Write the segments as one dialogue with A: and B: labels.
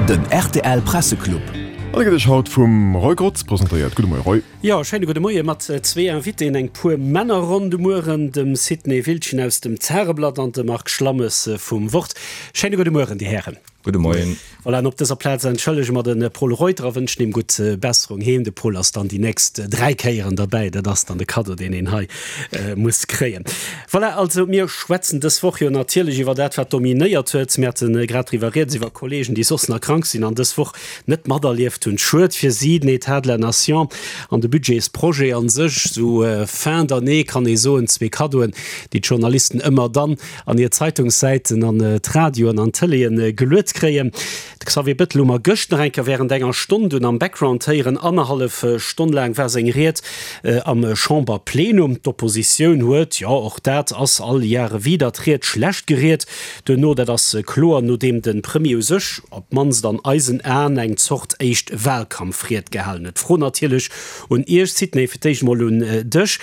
A: Den rtl Presseclub.
B: An e gëtt iech haut vum Roy Grotz presentéiert. Gudde Moie Roy.
C: Jo, schéine gudde Moie mat zwee Invitéen, eng puer Männerronn de Mueren, dem Sidney Wildgen aus dem Zareblatt an dem Marc Schlammes vum Wort. Schéine gudde Mueren, Dir Hären.
D: Gudde Moien.
C: Voilà, an op dëser Plaz entschëllege mer de Pol Reuter a wënschen him gutt Besserung heem. De Pol ass dann déi nächst 3 Kéieren derbäi. Dat ass dann de Kaddo, deen een hei muss kréien. Voilà, also mir schwätzen dës Woch jo natierlech iwwer dat, wat dominéiert huet. Mir hate grad driwwer rieds, iwwer Kollegen, déi soss nach krank sinn an dës Woch net materlieft hunn. Schued fir si, den État de la Nation an de Budgetsprojet a sech, sou fin d'année kann ee soen, zwee Kaddoen, déi d'Journalisten ëmmer dann an hir Zeitungssäiten, an d'Radioen an d'Tëleeën geluet kréien. De Xavier Bettel hu mer gëscht nach eng Kéier wärend enger Stonn dunn am Background héieren. Annerhallef Stonn laang war seng Ried am Chamberplenum. D'Oppositioun huet, jo och dat ass all Jahre wieder, d'Ried schlecht geriet duerno. Dat ass kloer, nodeem de Premier u sech, op d'mannst an eisen Aen, eng Zort éischt Wahlkampfried gehalen huet. D'Fro natierlech un Iech, Sidney, fir d'éischt emol un dech,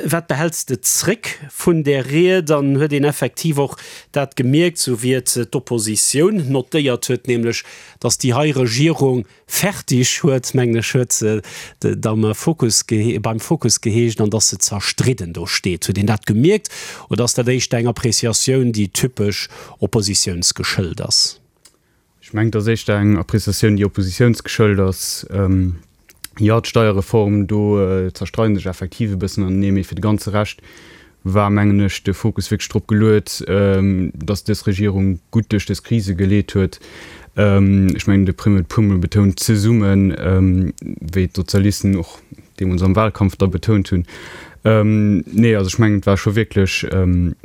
C: Wat behälls de zréck vun där Ried an huet een effektiv och dat gemierkt, sou wéi et d'Oppositioun notéiert huet, nämlech datt déi hei Regierung fertig huet, mengen ech huet et am Fokus beim Fokus geheescht, an datt se zerstridden do steet. Huet een dat gemierkt oder ass dat éischter eng Appreciatioun, déi typesch oppositiounsgeschëllt ass?
E: Ech mengen, et ass éischter eng Appreciatioun, déi oppositiounsgeschëllt ass. Jo, d'Steierreform, do zerstreide sech effektiv e bëssen anenee, mee fir de ganze Rescht war, mengen ech, de Fokus wierklech drop geluet, datt dës Regierung gutt duerch dës Krise geleet huet. Ech mengen, de Premier huet e puermol betount, zesummen, wéi d'Sozialisten och deemools am Wahlkampf da betount hunn. Nee, also ech mengen, et war scho wierklech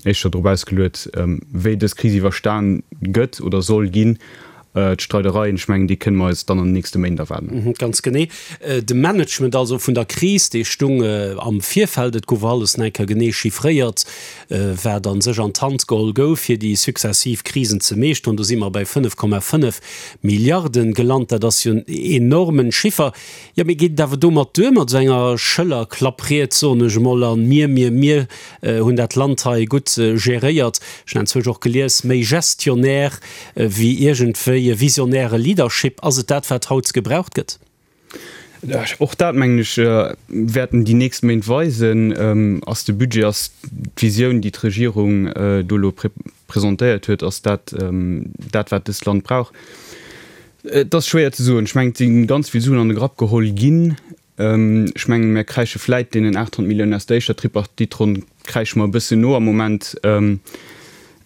E: éischter drop ausgeluet, wéi dës Kris iwwerstan gëtt oder soll ginn. D'Streidereien, ech mengen, déi kënne mer eis dann an den nächste Méint erwaarden.
C: Ganz genee. De Management also vun der Kris, dee stung am Virfeld. Et gouf alles nach eng Kéier genee chiffréiert, wat a sech an d'Hand geholl gouf, fir déi successiv Krisen ze meeschteren. Do si mer bei 5,5 Milliarden gelant. Dat ass jo en enormen Chiffer. Jo, mee geet et awer domat duer, mat esou enger Schëllerklappried, soen ech emol, an mir, mir, mir hunn dat Land hei gutt geréiert, ech hunn enzwousch och gelies, méi Gestionnaire wéi iergendwéi e visionäre Leadership, ass et dat, wat haut gebraucht gëtt?
E: Och dat, mengen ech, wäerten déi nächst Méint weisen. Ass de Budget, ass d'Visioun, déi d'Regierung do elo presentéiert huet, ass dat dat, wat dëst Land brauch? Et ass schwéier ze soen. Ech mengen, et si ganz vill Suen an de Grapp geholl ginn. Ech mengen, mir kräische vläit deenen 800 Milliounen aus der éischter Tripartite-Ronn kräische mer e bëssen no am Moment.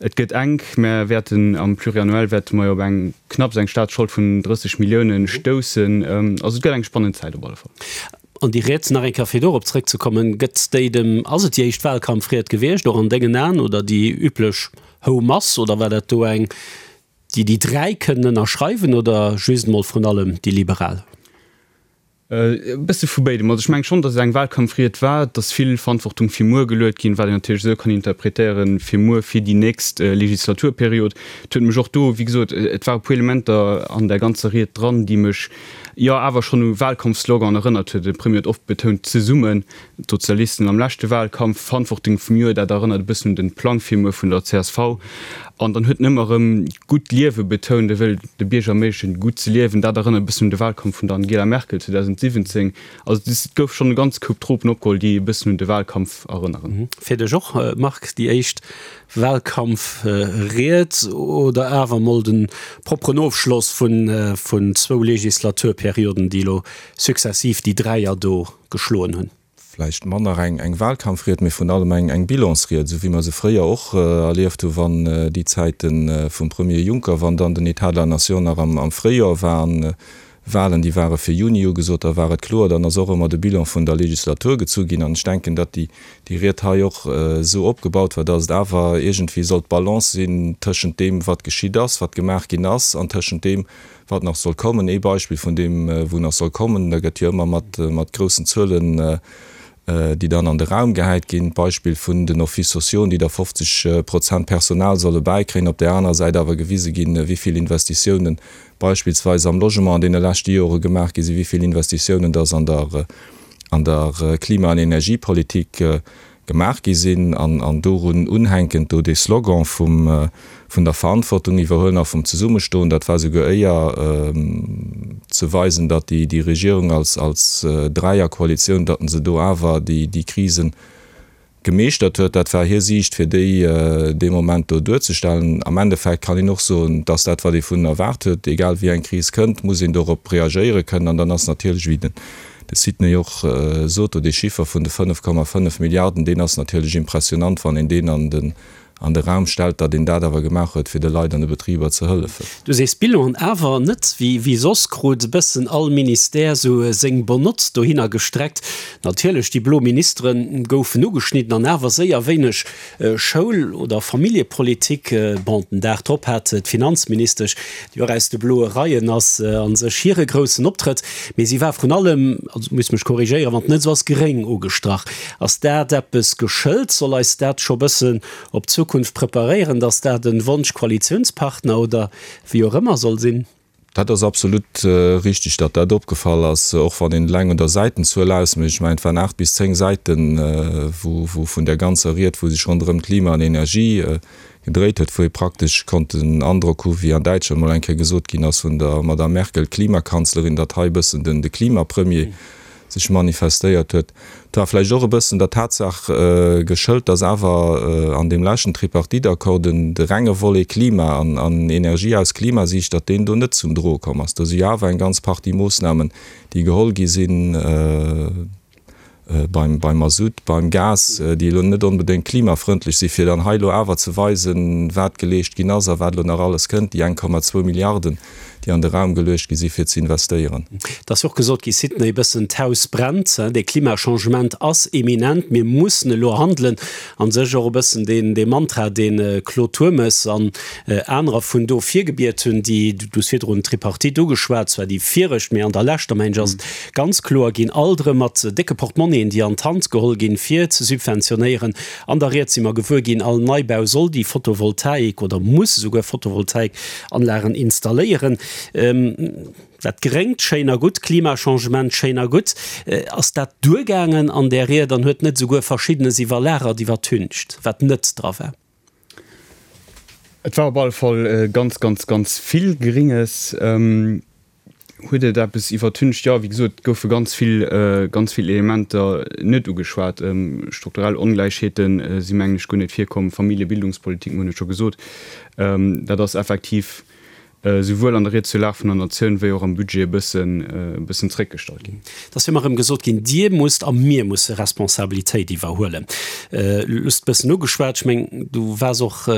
E: Et gëtt enk. Mer wäerten am Pluriannuel wäerte mer jo op eng knapps eng Staatsschold vun 30 Milliounen stoussen. Also et gëtt eng spannend Zäit op alle Fall.
C: An déi Ried, nach eng Kéier fir dorop zrëckzekommen, gëtt déi dem, ass et déi éischt Wahlkampfried gewiescht, och an dengen Aen, oder déi üblech Houmass, oder war dat do eng, Déi déi 3 kënnen ënnerschreiwen oder just emol vrun allem déi Liberal?
E: E bësse vu béidem. Also ech mengen schonn, datt et eng Wahlkampfried war. Et ass vill Verantwortung fir muer geluet ginn, wat een natierlech esou kann interpretéieren, fir muer, fir déi nächst Legislaturperiod. Et huet mech och do, wéi gesot, et ware puer Elementer an där ganzer Ried dran, déi mech jo awer schonn u Wahlkampfsloganen erënnert huet. De Premier huet oft betount, zesummen. D'Sozialisten am leschte Wahlkampf, Verantwortung vum Joer, dat erënnert e bëssen un den Plang fir muer vun der csv. An dann huet en ëmmer erëm d'gutt Liewe betount, e wëll de Bierger erméiglechen, gutt ze liewen. Dat erënnert e bëssen un de Wahlkampf vun der Angela Merkel 2017. Also et gouf schonn e ganz Koup Tropen opgeholl, déi e bëssen un de Wahlkampf erënneren.
C: Fir dech och, Marc, déi éischt Wahlkampfried oder awer mol de propperen Ofschloss vun zwou Legislaturperioden, déi elo successiv déi Dräier do geschloen hunn.
D: Vläicht manner eng Wahlkampfried, mee vrun allem eng Bilansried, esou wéi mer se fréier och erlieft hu wann déi Zäite vum Premier Juncker, wann dann den État de la Nation nach am Fréijoer war an Wahlen, déi ware fir Juni ugesot, da war et kloer, dann ass och ëmmer de Bilan vun der Legislatur gezu ginn. An ech denken, datt déi Ried hei och esou opgebaut war, datt et awer iergendwéi sollt d'Balance sinn tëschent deem, wat geschitt ass, wat gemaach ginn ass, an tëschent deem, Wat nach soll kommen, ee Beispill vun deem, wou nach soll kommen, da gëtt jo ëmmer mat, mat groussen Zuelen, déi dann an de Raum gehäit ginn, d'Beispill vun den Offices sociaux, déi da 50 Prozent Personal solle bäikréien, op där anerer Säit awer gewise ginn, wéi vill Investitiounen beispillsweis am Logement an deene leschte Jore gemaach gi sinn, wéi vill Investitiounen dass an der, an der Klima an Energiepolitik. gemaach gi sinn an dorun unhänkend do dee Slogan vum vun der Verantwortung iwwerhuelen a vum Zesummestoen, dat war souguer éier ze weisen, datt déi déi Regierung als als Dräierkoalitioun, datt se do awer déi déi Krisen gemeeschtert huet. Dat war hir Siicht, fir déi dee Moment do duerzestellen. Am Endeffekt kann een och soen, dass dat, wat ee vun erwaart huet, egal wéi eng Kris kënnt, muss een dorop reagéiere kënnen. An dann ass natierlech, wéi den de Sidney och sot, do dee Chiffer vun de 5,5 Milliarden, deen ass natierlech impressionant, wann een deen an den an de Raum stellt, datt een dat awer gemaach huet, fir de Leit an de Betriber ze hëllefen.
C: Du sees Bilan, awer net wéi soss krut e bëssen all Ministère sou seng Bonnotte dohinner gestreckt. Natierlech, déi blo Ministere goufen ugeschnidden an awer séier wéineg Schoul oder Familljepolitik. Bon, den Dag drop hat d'Finanzministesch, déi och aus de bloe Reien ass, a sech hire groussen Optrëtt, mee si war vrun allem, also muss mech korrigéieren, wann et net esou ass, gréng ugestrach. Ass dat eppes geschëlt? Soll eis dat scho bëssen op d'Zukunft preparéieren, datt dat e Wonsch-Koalitiounspartner oder wéi och ëmmer soll sinn?
D: Dat ass absolut richtig, datt dat opgefall ass, och wann een eleng un der Säitenzuel ausmécht. Ech mengen, et waren 8 bis 10 Säiten, wou vun där ganzer Ried, wou sech ronderëm Klima an Energie gedréit huet, wou ee praktesch konnt den Androck hu wéi an Däitschland mol eng Kéier gesot ginn ass vun der Madame Merkel, Klimakanzlerin, datt hei e bëssen den de Klimapremier sech manifestéiert huet. Et war vläicht och e bëssen der Tatsaach geschëlt, datt awer an deem leschten Tripartite-Accord den de renge Volet Klima an an Energie aus Klimasiicht, datt deen do net zum Droe komm ass. Do si jo awer eng ganz Partie Moossnamen, déi geholl gi sinn, beim beim Masutt, beim Gas, déi elo net onbedéngt klimafrëndlech sinn, fir dann hei elo awer ze weisen, wat geleescht ginn ass a wat elo nach alles kënnt, déi 1,2 Milliarden, déi an de Raum geluecht gi si fir ze investéieren.
C: Et ass jo och gesot gi, Sidney, e bëssen d'Haus brennt, de Klimachangement ass eminent, mir mussen elo handelen. A sech och e bëssen deen dee Mantra, dee Claude Turmes an anerer vun do virgebiet hunn, déi, du hues virdrun d'Tripartite ugeschwat, zwar déi viregt, mee an der leschter, mengen ech, ass et ganz kloer ginn, alt erëm mat décke Portmonnien, déi an d'Hand geholl ginn, fir ze subventionéieren. An der Ried si mer gewuer ginn, all Neibau soll déi Photovoltaik oder muss esouguer Photovoltaikanlagen installéieren. Dat Gréngt, schéin a gutt, Klimachangement, schéin a gutt. Ass dat duergaangen an där Ried an huet net esouguer Verschiddenes iwwerlagert, iwwertüncht, wat net dra war?
E: Et war op alle Fall ganz, ganz, ganz vill Gringes. Huet et eppes iwwertüncht? Jo, wéi gesot, et goufe ganz vill, ganz vill Elementer net ugeschwat. Strukturell Ongläichheete si mengen ech guer net virkomm. Familljebildungspolitik, mir hunn et scho gesot, dat ass effektiv souwuel an der Ried zur Lag vun der Natioun wéi och am Budget e bëssen, e bëssen zréckgestallt ginn.
C: Et ass jo ëmmer erëm gesot ginn, Dir musst a mir musse Responsabilitéit iwwerhuelen. Du hues et e bëssen ugeschwat, ech mengen, du waars och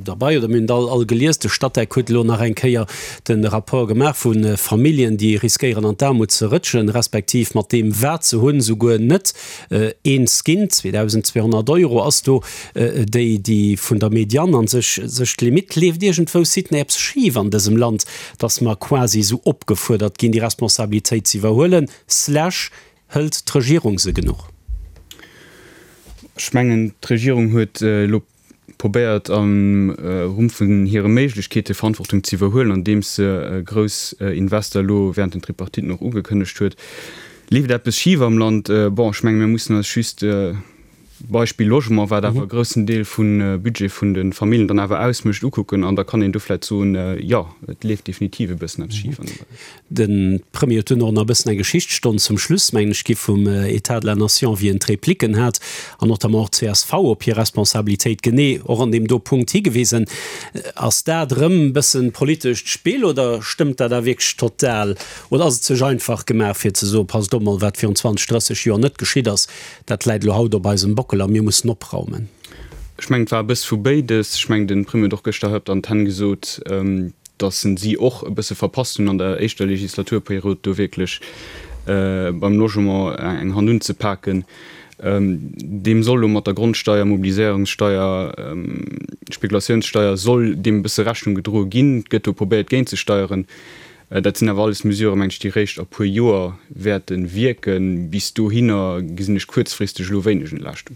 C: derbei oder mir hunn et all all gelies, de Statec huet elo nach eng Kéier de Rapport gemaach vu Familljen, déi riskéieren an d'Aarmut ze rëtschen, respektiv mat deem wat se hunn, souguer net eens ginn. 2.200 Euro ass do déi, déi vun der Medianne an sech sech d'Limitt. Leeft iergendwou, Sidney, eppes schif an dësem Land, datt mer quasi esou opgefuerdert ginn, déi Responsabilitéit ze iwwerhuelen, slash hëlt d'Regierung se genuch?
E: Ech mengen, d'Regierung huet elo probéiert am Rumm vun hire Méiglechkeete Verantwortung ze iwwerhuelen, andeems se grouss Invester elo während den Tripartiten och ugekënnegt huet. Leeft eppes schif am Land? Bon, ech menge mir mussen eis just, Beispill Logement, wat awer e groussen Deel vum Budget vun de Familljen dann awer ausmécht, ukucken an da kann een do vläicht soen, jo, et leeft definitiv e bëssen eppes schif an deem Beräich.
C: De Premier huet dunn och nach e bëssen eng Geschichtsstonn zum Schluss, mengen ech, gi vum État de la Nation, wéi en d'Repliken hat, an notamment och d'CSV op hir Responsabilitéit genee och an deem do Punkt higewisen. Ass dat erëm e bëssen politescht Spill oder stëmmt dat da wierklech total? Oder ass et sech einfach gemaach, fir ze soen, passt op mol, wat virun 20, 30 Joer net geschitt ass, dat läit elo haut op eisem Bockel a mir mussen opraumen?
E: Ech mengen, et war e bësse vu béides. Ech mengen, de Premier huet och gëschter hei op der Antenn gesot, datt en si och e bësse verpasst hunn an der éischter Legislaturperiod do wierklech beim Logement eng Hand unzepaken. Deem soll elo mat der Grondsteier, Mobiliséierungssteier, Spekulatiounssteier soll deem e bësse Rechnung gedroe ginn. Et gëtt do probéiert géintzesteieren. Dat sinn awer alles Mesuren, meng ech, déi réischt a puer Joer wäerte wierken. Bis dohinner gesinn ech kuerzfristeg elo wéineg Entlaaschtung.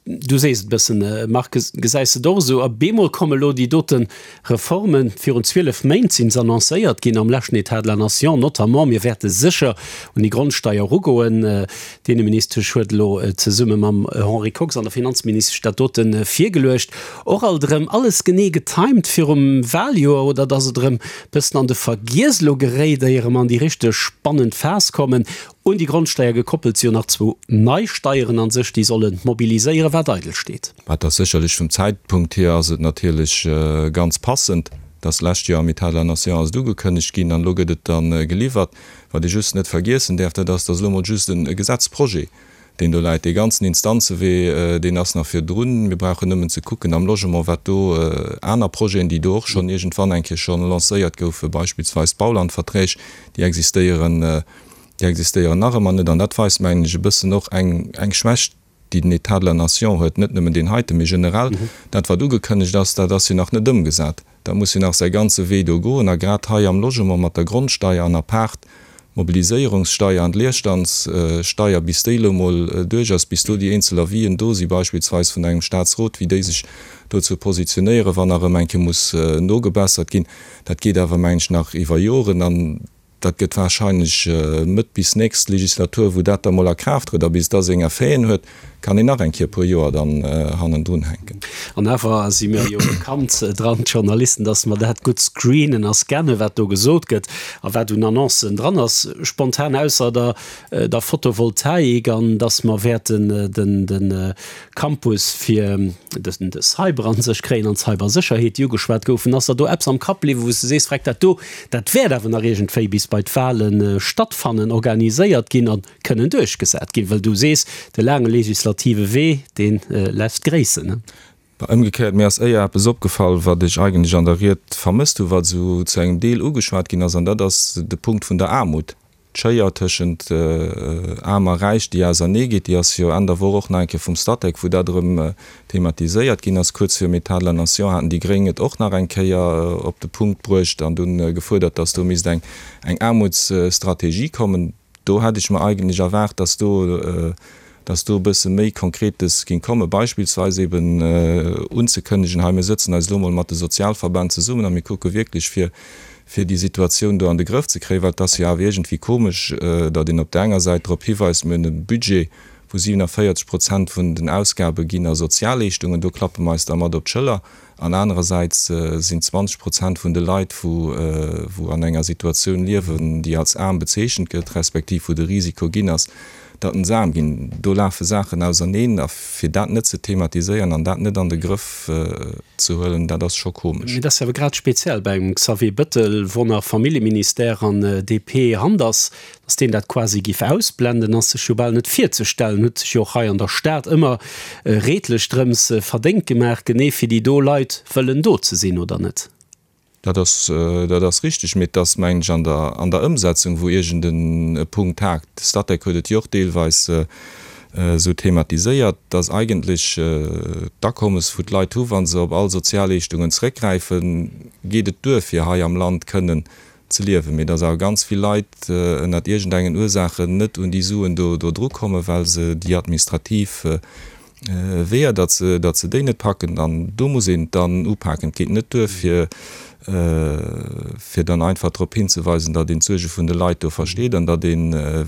C: Du sees et e bëssen, Marc, gesäis de et och esou? A bemol komme lo déi dote Reformen, virun 12 Méint sinn se annoncéiert ginn am leschten État de la Nation notamment. Mir wäerte sécher un déi Grondsteier erugoen. D'Inneministesch huet elo zesumme mam Henri Kox an der Finanzministesch dat dote virgeluecht. Och alt erëm alles genee getimed virum Wahljoer, oder datt et erëm bëssen an de Vergiess elo geréit, éier mer an déi richteg spannend Phas kommen. Un déi Grondsteier gekoppelt si jo nach zwou nei Steieren an sech, déi solle mobiliséieren, wat eidel steet.
D: Wat ass sécherlech vum Zäitpunkt hier ass et natierlech ganz passend, dass d'lescht Joer am État de la Nation ass et ugekënnegt ginn an elo gëtt et da geliwwert. Wat ee just net vergiessen däerf, dat ass, dass elo emol just e Gesetzprojet, deen do läit, dee ganzen Instanzewee, deen ass nach virdrun. Mir brauchen nëmmen ze kucken am Logement, wat do aner Projeten, déi do och schonn iergendwann eng Kéier schonn lancéiert goufen, beispillsweis d'Baulandverträg, déi existéieren, Déi existéieren nach ëmmer net. An dat weist, mengen ech, e bëssen och eng, eng Schwächt, déi den État de la Nation huet, net nëmmen deen heiten, mee generell. Dat, wat ugekënnegt ass, dat ass jo nach net ëmgesat. Dat muss jo nach säi ganze Wee do goen. A grad hei am Logement mat der Grondsteier an apaart d'Mobiliséierungssteier an d'Leerstandssteier, bis déi elo emol duerch ass, bis do déi eenzel Avisen do si beispillsweis vun engem Statsrot, wéi déi sech dozou positionéieren, wann nach erëm eng Kéier muss nogebessert ginn, dat geet awer, mengen ech, nach iwwer Joren. An Dat gëtt wahrscheinlech Mëtt bis nächst Legislatur, wou dat da mol a Kraaft trëtt. A bis da seng Effeten huet, kann een nach eng Kéier e puer Joer dann hannendrun hänken.
C: An awer si mir jo bekannt dran, d'Journalisten, dass mer dat gutt screenen a scannen, wat do gesot gëtt a wat un Annoncen dran ass. Spontan, ausser der der Photovoltaik an dass mer wäerten den de Campus fir de Cyber an sech kréien an d'Cybersécherheet, déi ugeschwat goufen. Ass der do eppes am Kapp bliwwen, wou s de sees, Freck, dat do, dat wäert awer nach iergendwéi bis bei d'Wale stattfannen, organiséiert ginn a kënnen duerchgesat ginn? Well du sees, de laange legislative Wee, dee lässt gréissen.
D: Ëmgekéiert, mir ass éier eppes opgefall, wat ech eigentlech an der Ried vermësst hu, wat esou zu engem Deel ugeschwat ginn ass, an dat ass de Punkt vun der Aarmut. D'Schéier tëschent Aarm a Räich, déi ausernee geet, déi ass jo Enn der Woch och nach eng Kéier vum Statec, wou dat erëm thematiséiert ginn ass. Kuerz virum État de la Nation haten déi Gréng et och nach eng Kéier op de Punkt bruecht an dunn gefuerdert, datt do misst eng Aarmutsstrategie kommen. Do hätt ech mer eigentlech erwaart, datt do dass do e bësse méi Konkretes géing kommen, beispillsweis eben unzekënnegen, hei mir sëtzen eis elo mol mat de Sozialverbänn zesummen a mir kucke wierklech fir fir déi Situatioun do an de Grëff ze kréien, well et ass jo awer iergendwéi komesch, datt een op där enger Säit drop hiweist, mir hunn e Budget wou 47 Prozent vun den Ausgabe ginn a Sozialleeschtungen, do klappe mer eis da mat op d'Schëller, An anerersäits sinn 20 Prozent vun de Leit, wou an enger Situatioun liewen, déi als aarm bezeechent gëtt, respektiv wou de Risiko ginn ass, datt se aarm ginn. Do lafe Saachen auserneen. A fir dat net ze thematiséieren an dat net an de Grëff ze huelen, dat ass scho komesch.
C: Mee dat ass jo awer grad speziell bei engem Xavier Bëttel, wou nach Familljeministère an DP Hand ass. Datt deen dat quasi giff ausblenden, ass sech jo bal net virzestellen. Huet sech jo och hei an der Stad ëmmer redlech drëms verdéngt gemaach, genee fir déi do Leit wëllen do ze sinn, oder net?
D: Dat ass, dat ass richteg, mee et ass, mengen ech, an der, an der Ëmsetzung, wou iergend e Punkt hakt. De Statec huet et jo och deelweis esou thematiséiert, datt eigentlech d'Akommes, wou d'Leit hu wa se op all Sozialleeschtungen zréckgräifen, geet et duer, fir hei am Land kënnen ze liewen, mee dass awer ganz vill Leit ënnert iergendengen Ursaachen net un déi Suen do do dru kommen, well se déi administrativ Weeër, datt se datt se déi net packen. An do muss een et dann upaken. Et geet net duer fir fir dann einfach drop hinzeweisen, datt een d'Suerge vun de Leit do versteet an datt ee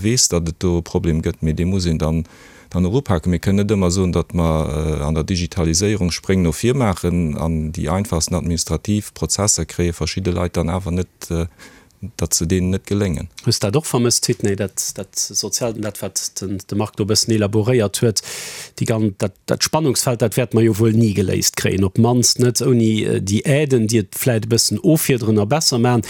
D: weess, datt et do e Problem gëtt, mee dee muss een dann dann och upaken. Mir kënnen net ëmmer soen, datt mer an der Digitaliséierung Spréng no vir maachen an déi einfachsten administrativ Prozesser kréie verschidde Leit dann awer net, datt se deenen net geléngen.
C: Hues dat och vermësst, Sidney, dat, dat Soziaalt an dat, wat den, de Marc do e bëssen elaboréiert huet, déi gan, dat, dat Spannungsfeld, dat wäerte mer jo wuel ni geléist kréien, op d'mannst net ouni déi Aiden, déi et vläicht e bëssen offiederen a besser maachen.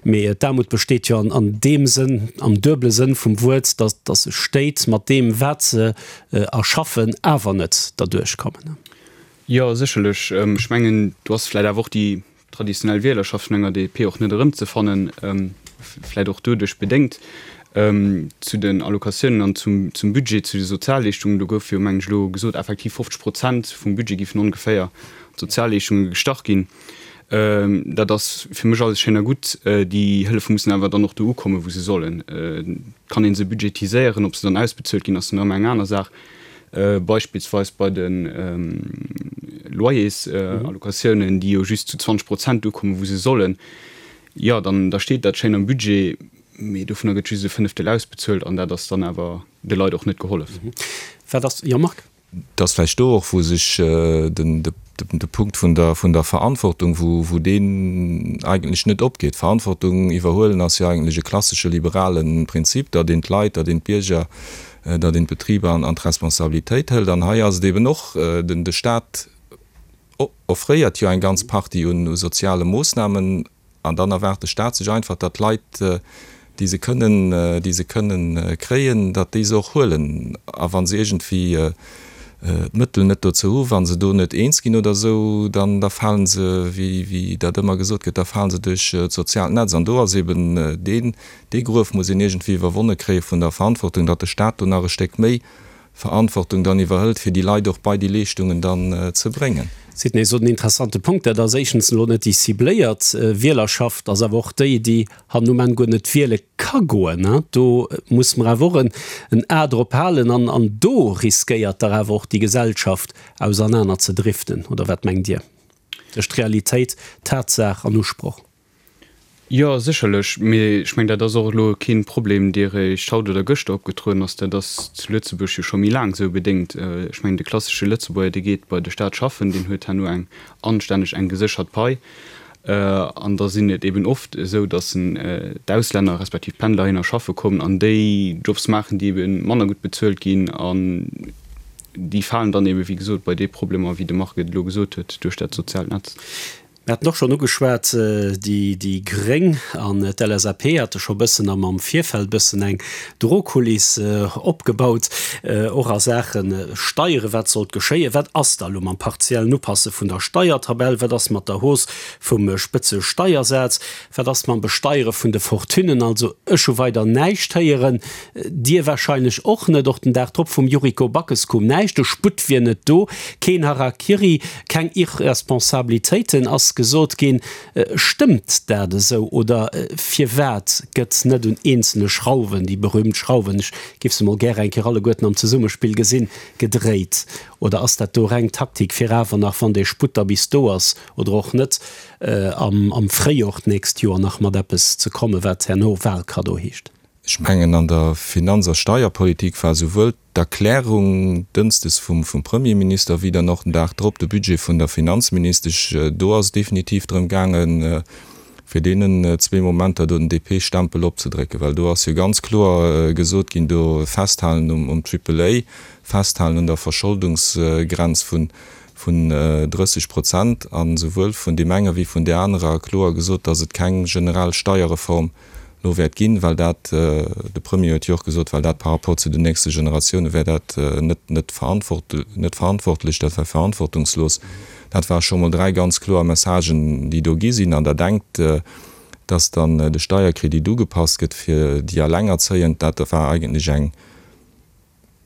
C: Mee d'Aarmut besteet jo an deem Sënn, am duebele Sënn vum Wuert, datt datt sech Stéit mat deem, wat se erschaffen, awer net derduerch kommen.
E: Jo, sécherlech. Ech mengen, do ass vläicht awer och déi traditionell Wielerschaft vun enger DP och net erëmzefannen, vläicht och doduerch bedéngt. Zu den Allocatiounen an zum Budget, zu de Sozialleeschtungen, do gouf jo, mengen ech, elo gesot, effektiv 50 Prozent vum Budget géifen ongeféier an d'Sozialleeschtunge gestach ginn. Dat ass fir mech alles schéin a gutt. Déi Hëllefe mussen awer dann och do ukommen, wou se sollen. Et kann ee se budgetiséieren, ob se dann ausbezuelt ginn, ass dann ëmmer eng aner Saach. Beispillsweis bei de Loyersallocationen, déi jo just zu 20 Prozent ukommen, wou se sollen. Jo, dann da steet dat schéin am Budget, mee dovunner gëtt just e Fënneftel ausbezuelt an dat ass dann awer de Leit och net gehollef.
C: Wat ass, jo Marc?
D: Et ass vläicht do och, wou sech de Punkt vun der Verantwortung, wou deen eigentlech net opgeet. Verantwortung iwwerhuelen ass jo eigentlech e klassesche liberale Prinzip, datt een d'Leit, datt een d'Bierger, datt een d'Betriber an d'Responsabilitéit hëlt. An hei ass et eben och, de Stat offréiert jo eng ganz Partie u soziale Moossnamen, An dann erwaart de Staat sech einfach, datt d'Leit, déi se kënnen, déi se kënnen kréien, datt déi se och huelen. A wa se iergendwéi d'Mëttel net dozou hu, wa se do net eens ginn oder esou, dann da fale se, wéi, wéi dat ëmmer gesot gëtt, da fale se duerch d'soziaalt Netz. An do ass eben deen, dee Gruef muss een iergendwéi iwwerwonne kréie vun der Verantwortung, datt de Staat do nach e Stéck méi Verantwortung dann iwwerhëlt, fir déi Leit och bei déi Leeschtungen dann ze bréngen.
C: Sidney sot en interessante Punkt, dat ass éischtens elo net déi cibléiert Wielerschaft, ass awer och déi, déi hannen um Enn guer net wiele ka goen. Do muss mer awer och en A drop halen an an do riskéiert dach awer och déi Gesellschaft ausernaner ze driften, oder wat mengt Dir? Tëscht Realitéit, Tatsaach an Usproch.
E: Jo, sécherlech. Mee ech mengen, dat ass och elo kee Problem, dee réischt haut oder gëschter opgetrueden ass. Dat ass zu Lëtzebuerg jo scho méi laang esou bedéngt. Ech mengen, de klassesche Lëtzebuerger, dee geet bei de Staat schaffen, deen huet herno eng anstänneg, eng geséchert Pai. An da sinn et eben oft esou, datt d'Auslänner respektiv d'Pendler heihinner schaffe kommen an déi Jobs maachen, déi ebe manner gutt bezuelt ginn. An déi falen dann ebe, wéi gesot, bei déi Problemer, wéi de Marc et elo gesot huet, duerch dat soziaalt Netz.
C: Mir haten och schonn ugeschwat, déi gréng an d'LSAP hate scho bëssen am am Virfeld bëssen eng Drohkuliss opgebaut, och a Saache Steiere. Wat sollt geschéien? Wat ass da elo mam partiellen Upasse vun der Steiertabell? Wat ass mat der Hausse vum Spëtzesteiersaz? Wat ass mam Besteiere vun de Fortunen? Also ech hu weider näischt héieren, Dir warscheinlech och net. Och den Dag drop vum Yuriko Backes koum näischt. De Sputt wier net do, keen Harakiri, keng Irresponsabilitéiten ass gesot ginn. Stëmmt dat esou oder firwat gëtt net un eenzele Schrauwen, déi berühmt Schrauwen, ech géif se mol gäre eng Kéier alleguerten am Zesummespill gesinn, gedréit? Oder ass dat do reng Taktik fir awer nach, wann dee Sputt da bis do ass oder och net, am Fréijor d'nächst Joer nach mat eppes ze kommen, wat herno Wahlkaddo heescht?
D: Ech mengen, an der Finanz a Steierpolitik war souwuel d'Erklärung dënsdes vum Premierminister wéi dann och den Dag drop de Budget vun der Finanzministesch, do ass et definitiv drëm gaangen, fir deenen zwee Momenter do den DP-Stempel opzedrécken, well do ass jo ganz kloer gesot ginn, do festhalen um Triple A, festhalen un der Verscholdungsgrenz vun 30 Prozent a souwuel vun deem enger wéi vun där anerer kloer gesot, datt et keng generell Steierreform lo wäert ginn, well dat, de Premier huet jo och gesot, well dat par rapport zu den nächste Generatioune wär dat net, net net verantwortlech, dat wär verantwortungslos. Dat ware scho mol 3 ganz kloer Messagen, déi do gi sinn. An Der denkt, dass dann de Steierkredit ugepasst gëtt fir déi Allengerzéiend, dat war eigentlech eng,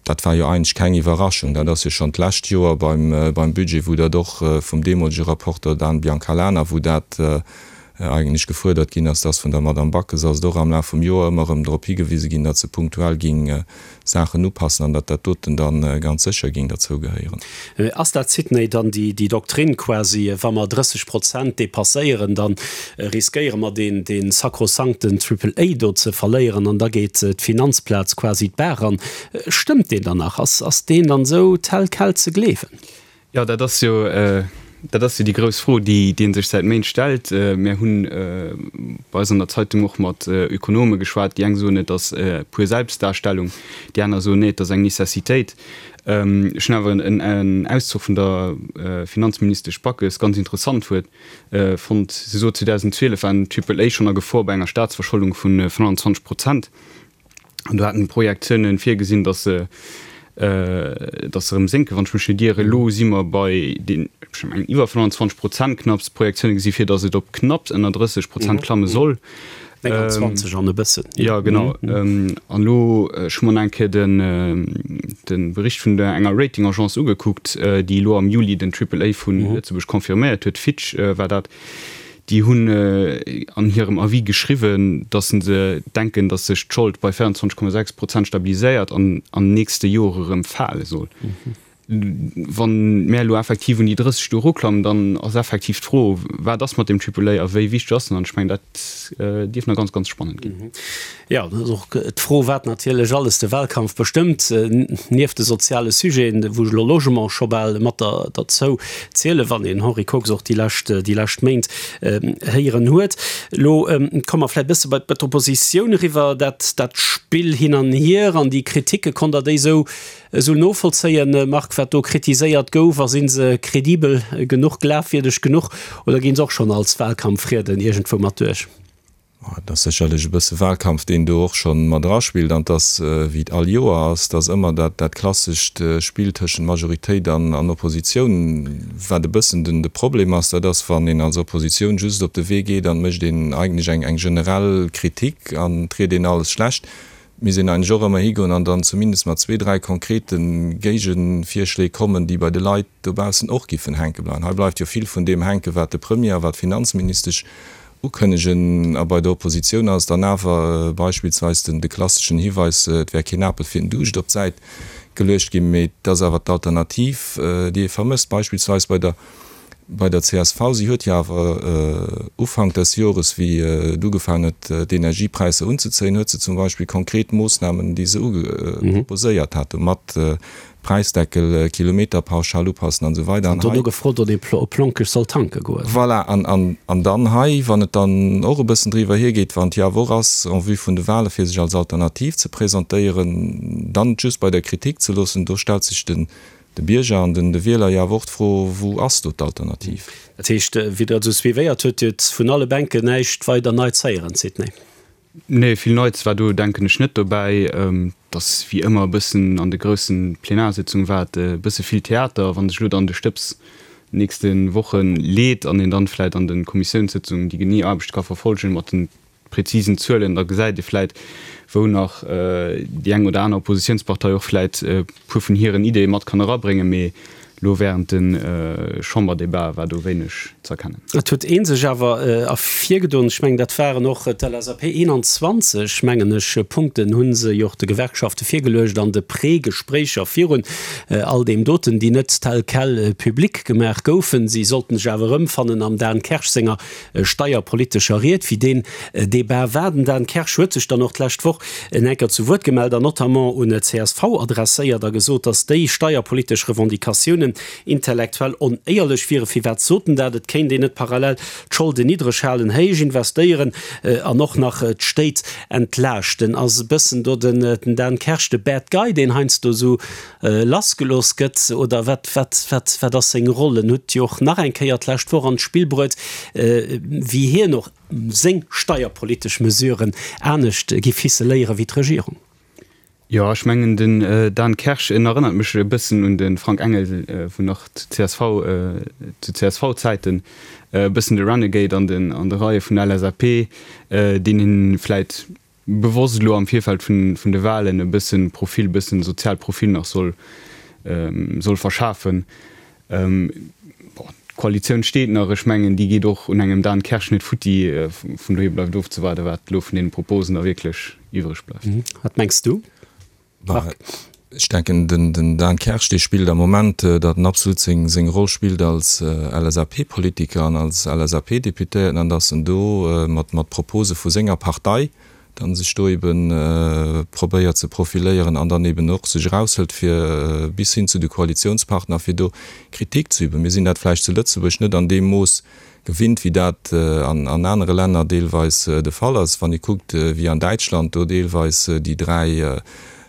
D: Dat war jo eigentlech keng Iwwerraschung. Dat ass jo schonn d'lescht Joer beim Budget, wou dat och vum deemolege Rapporteur Dan Biancalana, wou dat eigentlech gefuerdert ginn ass, dass vun der Madame Backes ass et och am Laf vum Joer ëmmer erëm drop higewise ginn, datt se punktuell géing Saachen upassen an datt dat doten da ganz sécher géing derzou gehéieren.
C: Ass dat, Sidney, dann déi Doktrin quasi, wa mer 30 Prozent dépasséieren, da riskéiere mer dee sakrosankten Triple A do ze verléieren an da geet d'Finanzplaz quasi d'Baach an. Stëmmt deen dann nach? Ass deen dann esou tel quel ze gleewen?
E: Jo, dat ass jo, dat ass jo déi grouss Fro, déi ee sech säit Méint stellt. Mir hunn bei eis an der Zeitung och mat Ökonome geschwat. Déi eng soen, et ass pur Selbstdarstellung, déi aner soen, nee, et ass eng Necessitéit. Ech hunn awer en Auszuch vun der Finanzministesch Backes ganz interessant huet fonnt. Si sot, 2012 war den Triple A schonn a Gefor bei enger Staatsverscholdung vu 25 Prozent. An do haten d'Projektiounen virgesinn, datt se datt se erëm sénken, wann ech mech net ieren. Elo si mer bei den, ech mengen, iwwer 25 Prozent knapps. D'Projektioune gesi vir, datt et op knapps ënner 30 Prozent klamme soll.
C: 29 an e bëssen.
E: Jo, genau. An elo, ech hu mer nach eng Kéier den, de Bericht vun der enger Rating-Agence ugekuckt, déi elo am Juli den Triple A vu Lëtzebuerg confirméiert huet, Fitch war dat. Déi hunn an hirem Avis geschriwwen, datt se denken, datt sech d'Schold bei 24,6 Prozent stabiliséiert an an nächste Jore erëm fale soll. Wann mär elo effektiv un déi 30 do eruklammen, dann ass effektiv d'Fro, wat ass mat deem Triple A a wéi wichteg ass en? An ech mengen, dat dierf nach ganz, ganz spannend ginn.
C: Jo, dat ass och d'Fro, wat natierlech alles de Wahlkampf bestëmmt, nieft de soziale Sujeten, wou ech elo Logement scho bal mat derzou zielen, wann een Henri Kox och déi lescht, déi lescht Méint héieren huet. Elo komme mer vläicht e bësse bei d'Oppositioun eriwwer. Dat, dat Spill hin an hier an déi Kritike, konnt Der déi esou, esou novollzéien, Marc, wat do kritiséiert gouf? A si se kredibel genuch, glafwierdeg genuch oder gi se och schonn als Wahlkampfrieden iergendwou mat duerch?
D: Et ass sécherlech e bësse Wahlkampf, deen do och scho mat eraspillt. An et ass, wéi et all Joer ass, et ass ëmmer dat dat klassescht Spill tëschent Majoritéit an Oppositioun. Wat e bëssen den de Problem ass, dat ass, wann een als Oppositioun just op de Wee geet an et mécht een eigentlech eng eng generell Kritik an et riet een alles schlecht. Et misst een eigentlech och ëmmer higoen an dann zumindest mat zwee, dräi konkrete Géigevirschléi kommen, déi bei de Leit dobaussen och giffen hänke bleiwen. Hei bleift jo vill vun deem hänken, wat de Premier a wat d'Finanzministesch ukënnegen. A bei der Oppositioun ass et dann awer beispillsweis den de klasseschen Hiweis, et wär keen Apel fir den Duuscht op d'Säit geluecht ginn. Mee et ass awer d'Alternativ, déi ee vermësst, beispillsweis bei der bei der csv. Si huet jo awer Ufank des Jores, wéi et ugefaangen huet, d'Energiepräisser unzezéien, huet se zum Beispill konkret Moossnamen, déi se proposéiert hat, mat Präisdeckel, Kilometerpauschal upassen an esou weider.
C: An dono gefrot, ob ee op Lonkech soll tanke goen.
D: Voilà, an dann hei, wann et dann och e bëssen driwwer hiergeet, wann et jo awer och ass en vue vun de Wahle fir sech als Alternativ ze presentéieren, dann et just bei der Kritik ze loossen, do stellt sech de Bierger an de Wieler jo awer och d'Fro, Wou ass do d'Alternativ?
C: Dat heescht, wéi Der et esou suivéiert hutt, Dir hutt vun alle Bänken näischt weider Neits héieren, Sidney?
E: Nee, vill Neits war do, denken ech, net dobäi. Et ass wéi ëmmer e bëssen an de groussen Plenarsitzunge war et e bësse vill Theater. Wann sech elo dann de Stëbs nächste Woche leet an een dann vläit an de Kommissiounssëtzungen déi genee Aarbecht ka verfolgen mat de prezisen Zuelen, da gesäit ee vläit, wou nach déi eng oder aner Oppositiounspartei och vläit e puer vun hiren Ideeë mat kann erabréngen. Mee Elo während de Chamberdebatë war do wéineg z'erkennen.
C: Et huet ee sech awer ervirgedoen, ech mengen dat waren och d'LSAP, 21 mengen ech Punkten hu se jo och de Gewerkschafte virgeluecht an de Prégespréicher virun all deem doten, déi net tel quel public gemaach goufen. Si sollten sech awer erëmfannen am Dan Kersch senger steierpolitescher Ried, wéi deen Debat war. Den Dan Kersch huet sech dann och d'lescht Woch en enker zu Wuert gemellt an notamment un d'CSV adresséiert a gesot, datt déi steierpolitesch Revendicatiounen intellektuell onéierlech wieren. Firwat sot en dat? Et kéint een net parallel d'Scholden niddreg halen, héich investéieren an och nach d'Stéit entlaaschten. Ass e bëssen do den Dan Kersch de Bad Guy, deen heiansdo esou lassgelooss gëtt oder wat, wat, wat, wat ass seng Roll? En huet jo och nach eng Kéier d'lescht Woch an d'Spill bruet, wéi hien och seng steierpolitesch Mesuren anescht giff ficeléiere wéi d'Regierung.
E: Jo, ech mengen den Dan Kersch, en erënnert mech e bëssen un de Frank Engel vun nach zu csv, zu CSV-Zäiten, e bëssen de Renegade an den, an de Reie vun der LSAP, deen een vläit bewosst elo am Virfeld vun de Wahlen e bëssen Profil, e bëssen sozial Profil nach soll soll verschafen. Bon, d'Koalitioun steet nach, ech mengen déi geet och un engem Dan Kersch net futti, vun dohier bleift ofzewaarden, wat elo vun deene Proposen da wierklech iwwreg bleift.
C: Wat mengs du?
D: Marc. Ech denken, den Dan Kersch, dee spillt am Moment, datt en absolut seng Roll spillt als LSAP-Politiker an als LSAP-Deputéierten an datt en do mat Propose vu senger Partei dann sech do ebe probéiert ze profiléieren an dann eben och sech eraushëlt fir bis hin zu de Koalitionspartner, fir do Kritik ze üben. Mir sinn dat vläicht zu Lëtzebuerg net an deem Mooss gewinnt, wéi dat an anere Länner deelweis de Fall ass. Wann ee kuckt, wéi an Däitschland do deelweis déi dräi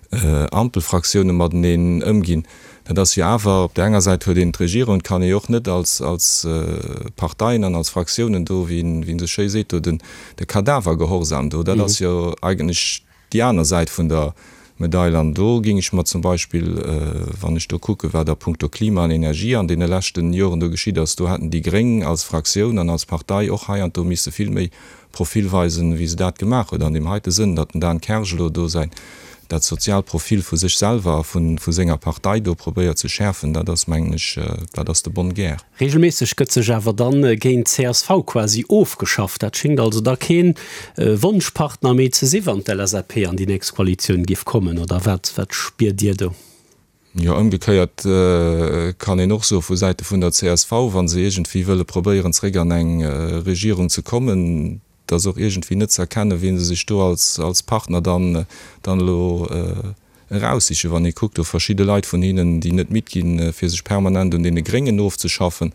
D: Ampelfraktioune mateneen ëmginn, dat ass jo awer, op där enger Säit huet een d'Regierung, et kann ee jo och net als Parteien an als Fraktiounen do, wéi een esou schéi seet, do de Kadavergehorsam do, dat ass jo eigentlech Déi aner Säit vun der Medail, an do géing ech mer zum Beispill, wann ech do kucken, wat a puncto Klima an Energie an deene leschten Joren do geschitt ass, do hätten déi Gréng als Fraktioun an als Partei och hei an do misse vill méi Profil weisen, wéi se dat gemaach huet. An deem heite Sënn, datt den Dan Kersch elo do säin. dat soziaalt Profil vu sech selwer a vu senger Partei do probéiert ze schäerfen, dat ass, mengen ech, dat ass de bonne guerre.
C: Regelméisseg gëtt sech awer dann géint csv quasi ofgeschafft. Dat schéngt also da keen Wonschpartner méi ze si wann d'LSAP an déi nächst Koalitioun giff kommen, oder wat spiert Dir do?
D: Jo, ëmgekéiert kann een och soe vu Säite vun der csv, wa se iergendwéi wëlle probéieren zréck an eng Regierung ze kommen, et ass och iergendwéi net ze erkennen, wien se sech do als als Partner dann dann elo eraussichen. Wann ee kuckt, do verschidde Leit vun hinnen, déi net midd ginn, fir sech permanent un deene Gréngen ofzeschaffen,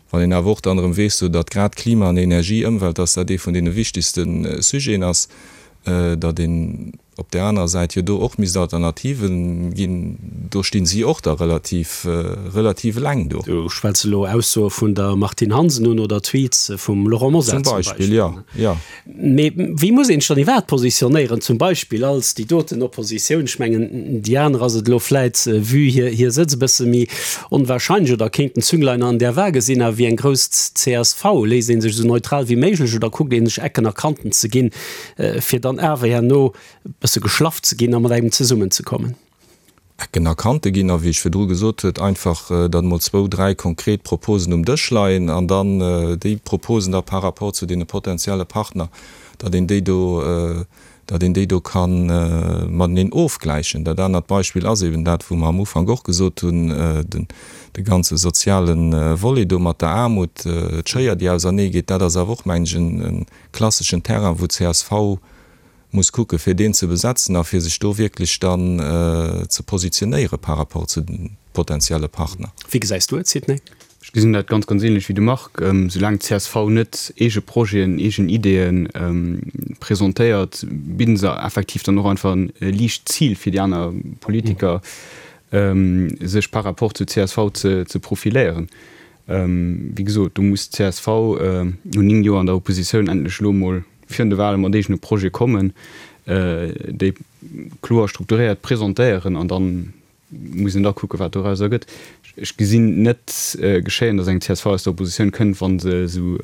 D: wann een awer och dann erëm weess, do datt grad Klima an Energie, Ëmwelt, datt dat ee vun deene wichtegste Sujeten ass, datt een Op där anerer Säit jo do och misst Alternativen ginn, do stinn si och da relativ, relativ eleng do.
C: Du schwätz elo Aussoe vun der Martine Hansen un oder Tweets vum Laurent Mosar
D: zum Beispill. Zum Beispill, jo, jo.
C: Mee wéi muss een sech dann iwwerhaapt positionéieren, zum Beispill als déi doten Oppositioun? Ech mengen, déi aner ass et elo vläit, vue hir, hir Sëtz, e bësse méi onwahrscheinlech oder kéinten Zünglein an der Waage sinn. Awer wéi eng grouss csv, léisst ee sech esou neutral wéi méiglech oder kuckt ee sech Ecken a Kanten ze ginn, fir dann awer herno e bësse geschlaff ze ginn a mat engem zesummenzekommen.
D: Ecken a Kante ginn a wéi ech virdru gesot huet, einfach datt emol zwou, dräi konkret Proposen um Dësch leien an dann déi Proposen da par rapport zu deene potenzielle Partner, datt een déi do, datt een déi do ka mateneen ofgläichen. Dat anert Beispill ass eben dat, wou mer am Ufank och gesot hunn, den de ganze soziale Volet do mat der Aarmut, d'Schéier déi auserneegeet, dat ass awer och, mengen ech, en klasseschen Terrain, wou csv muss kucke fir deen ze besetzen a fir sech do wierklech dann ze positionéiere par rapport zu de potenzielle Partner.
C: Wéi gesäis du et, Sidney?
E: Ech gesinn dat ganz, ganz ähnlech wéi de Marc. Soulaang csv net eege Projeten, eegen Ideeë presentéiert, bidden se effektiv dann och einfach e liicht Zil fir déi aner Politiker, sech par rapport zu csv ze profiléieren. Wéi gesot, do muss d'CSV no 9 Joer an der Oppositioun endlech elo emol virun de Wale mat eegene Projete kommen, déi kloer strukturéiert presentéieren an da muss een da kucken, wat dorauser gëtt. Ech gesinn net geschéien, datt eng csv aus der Oppositioun kënnt, wa se esou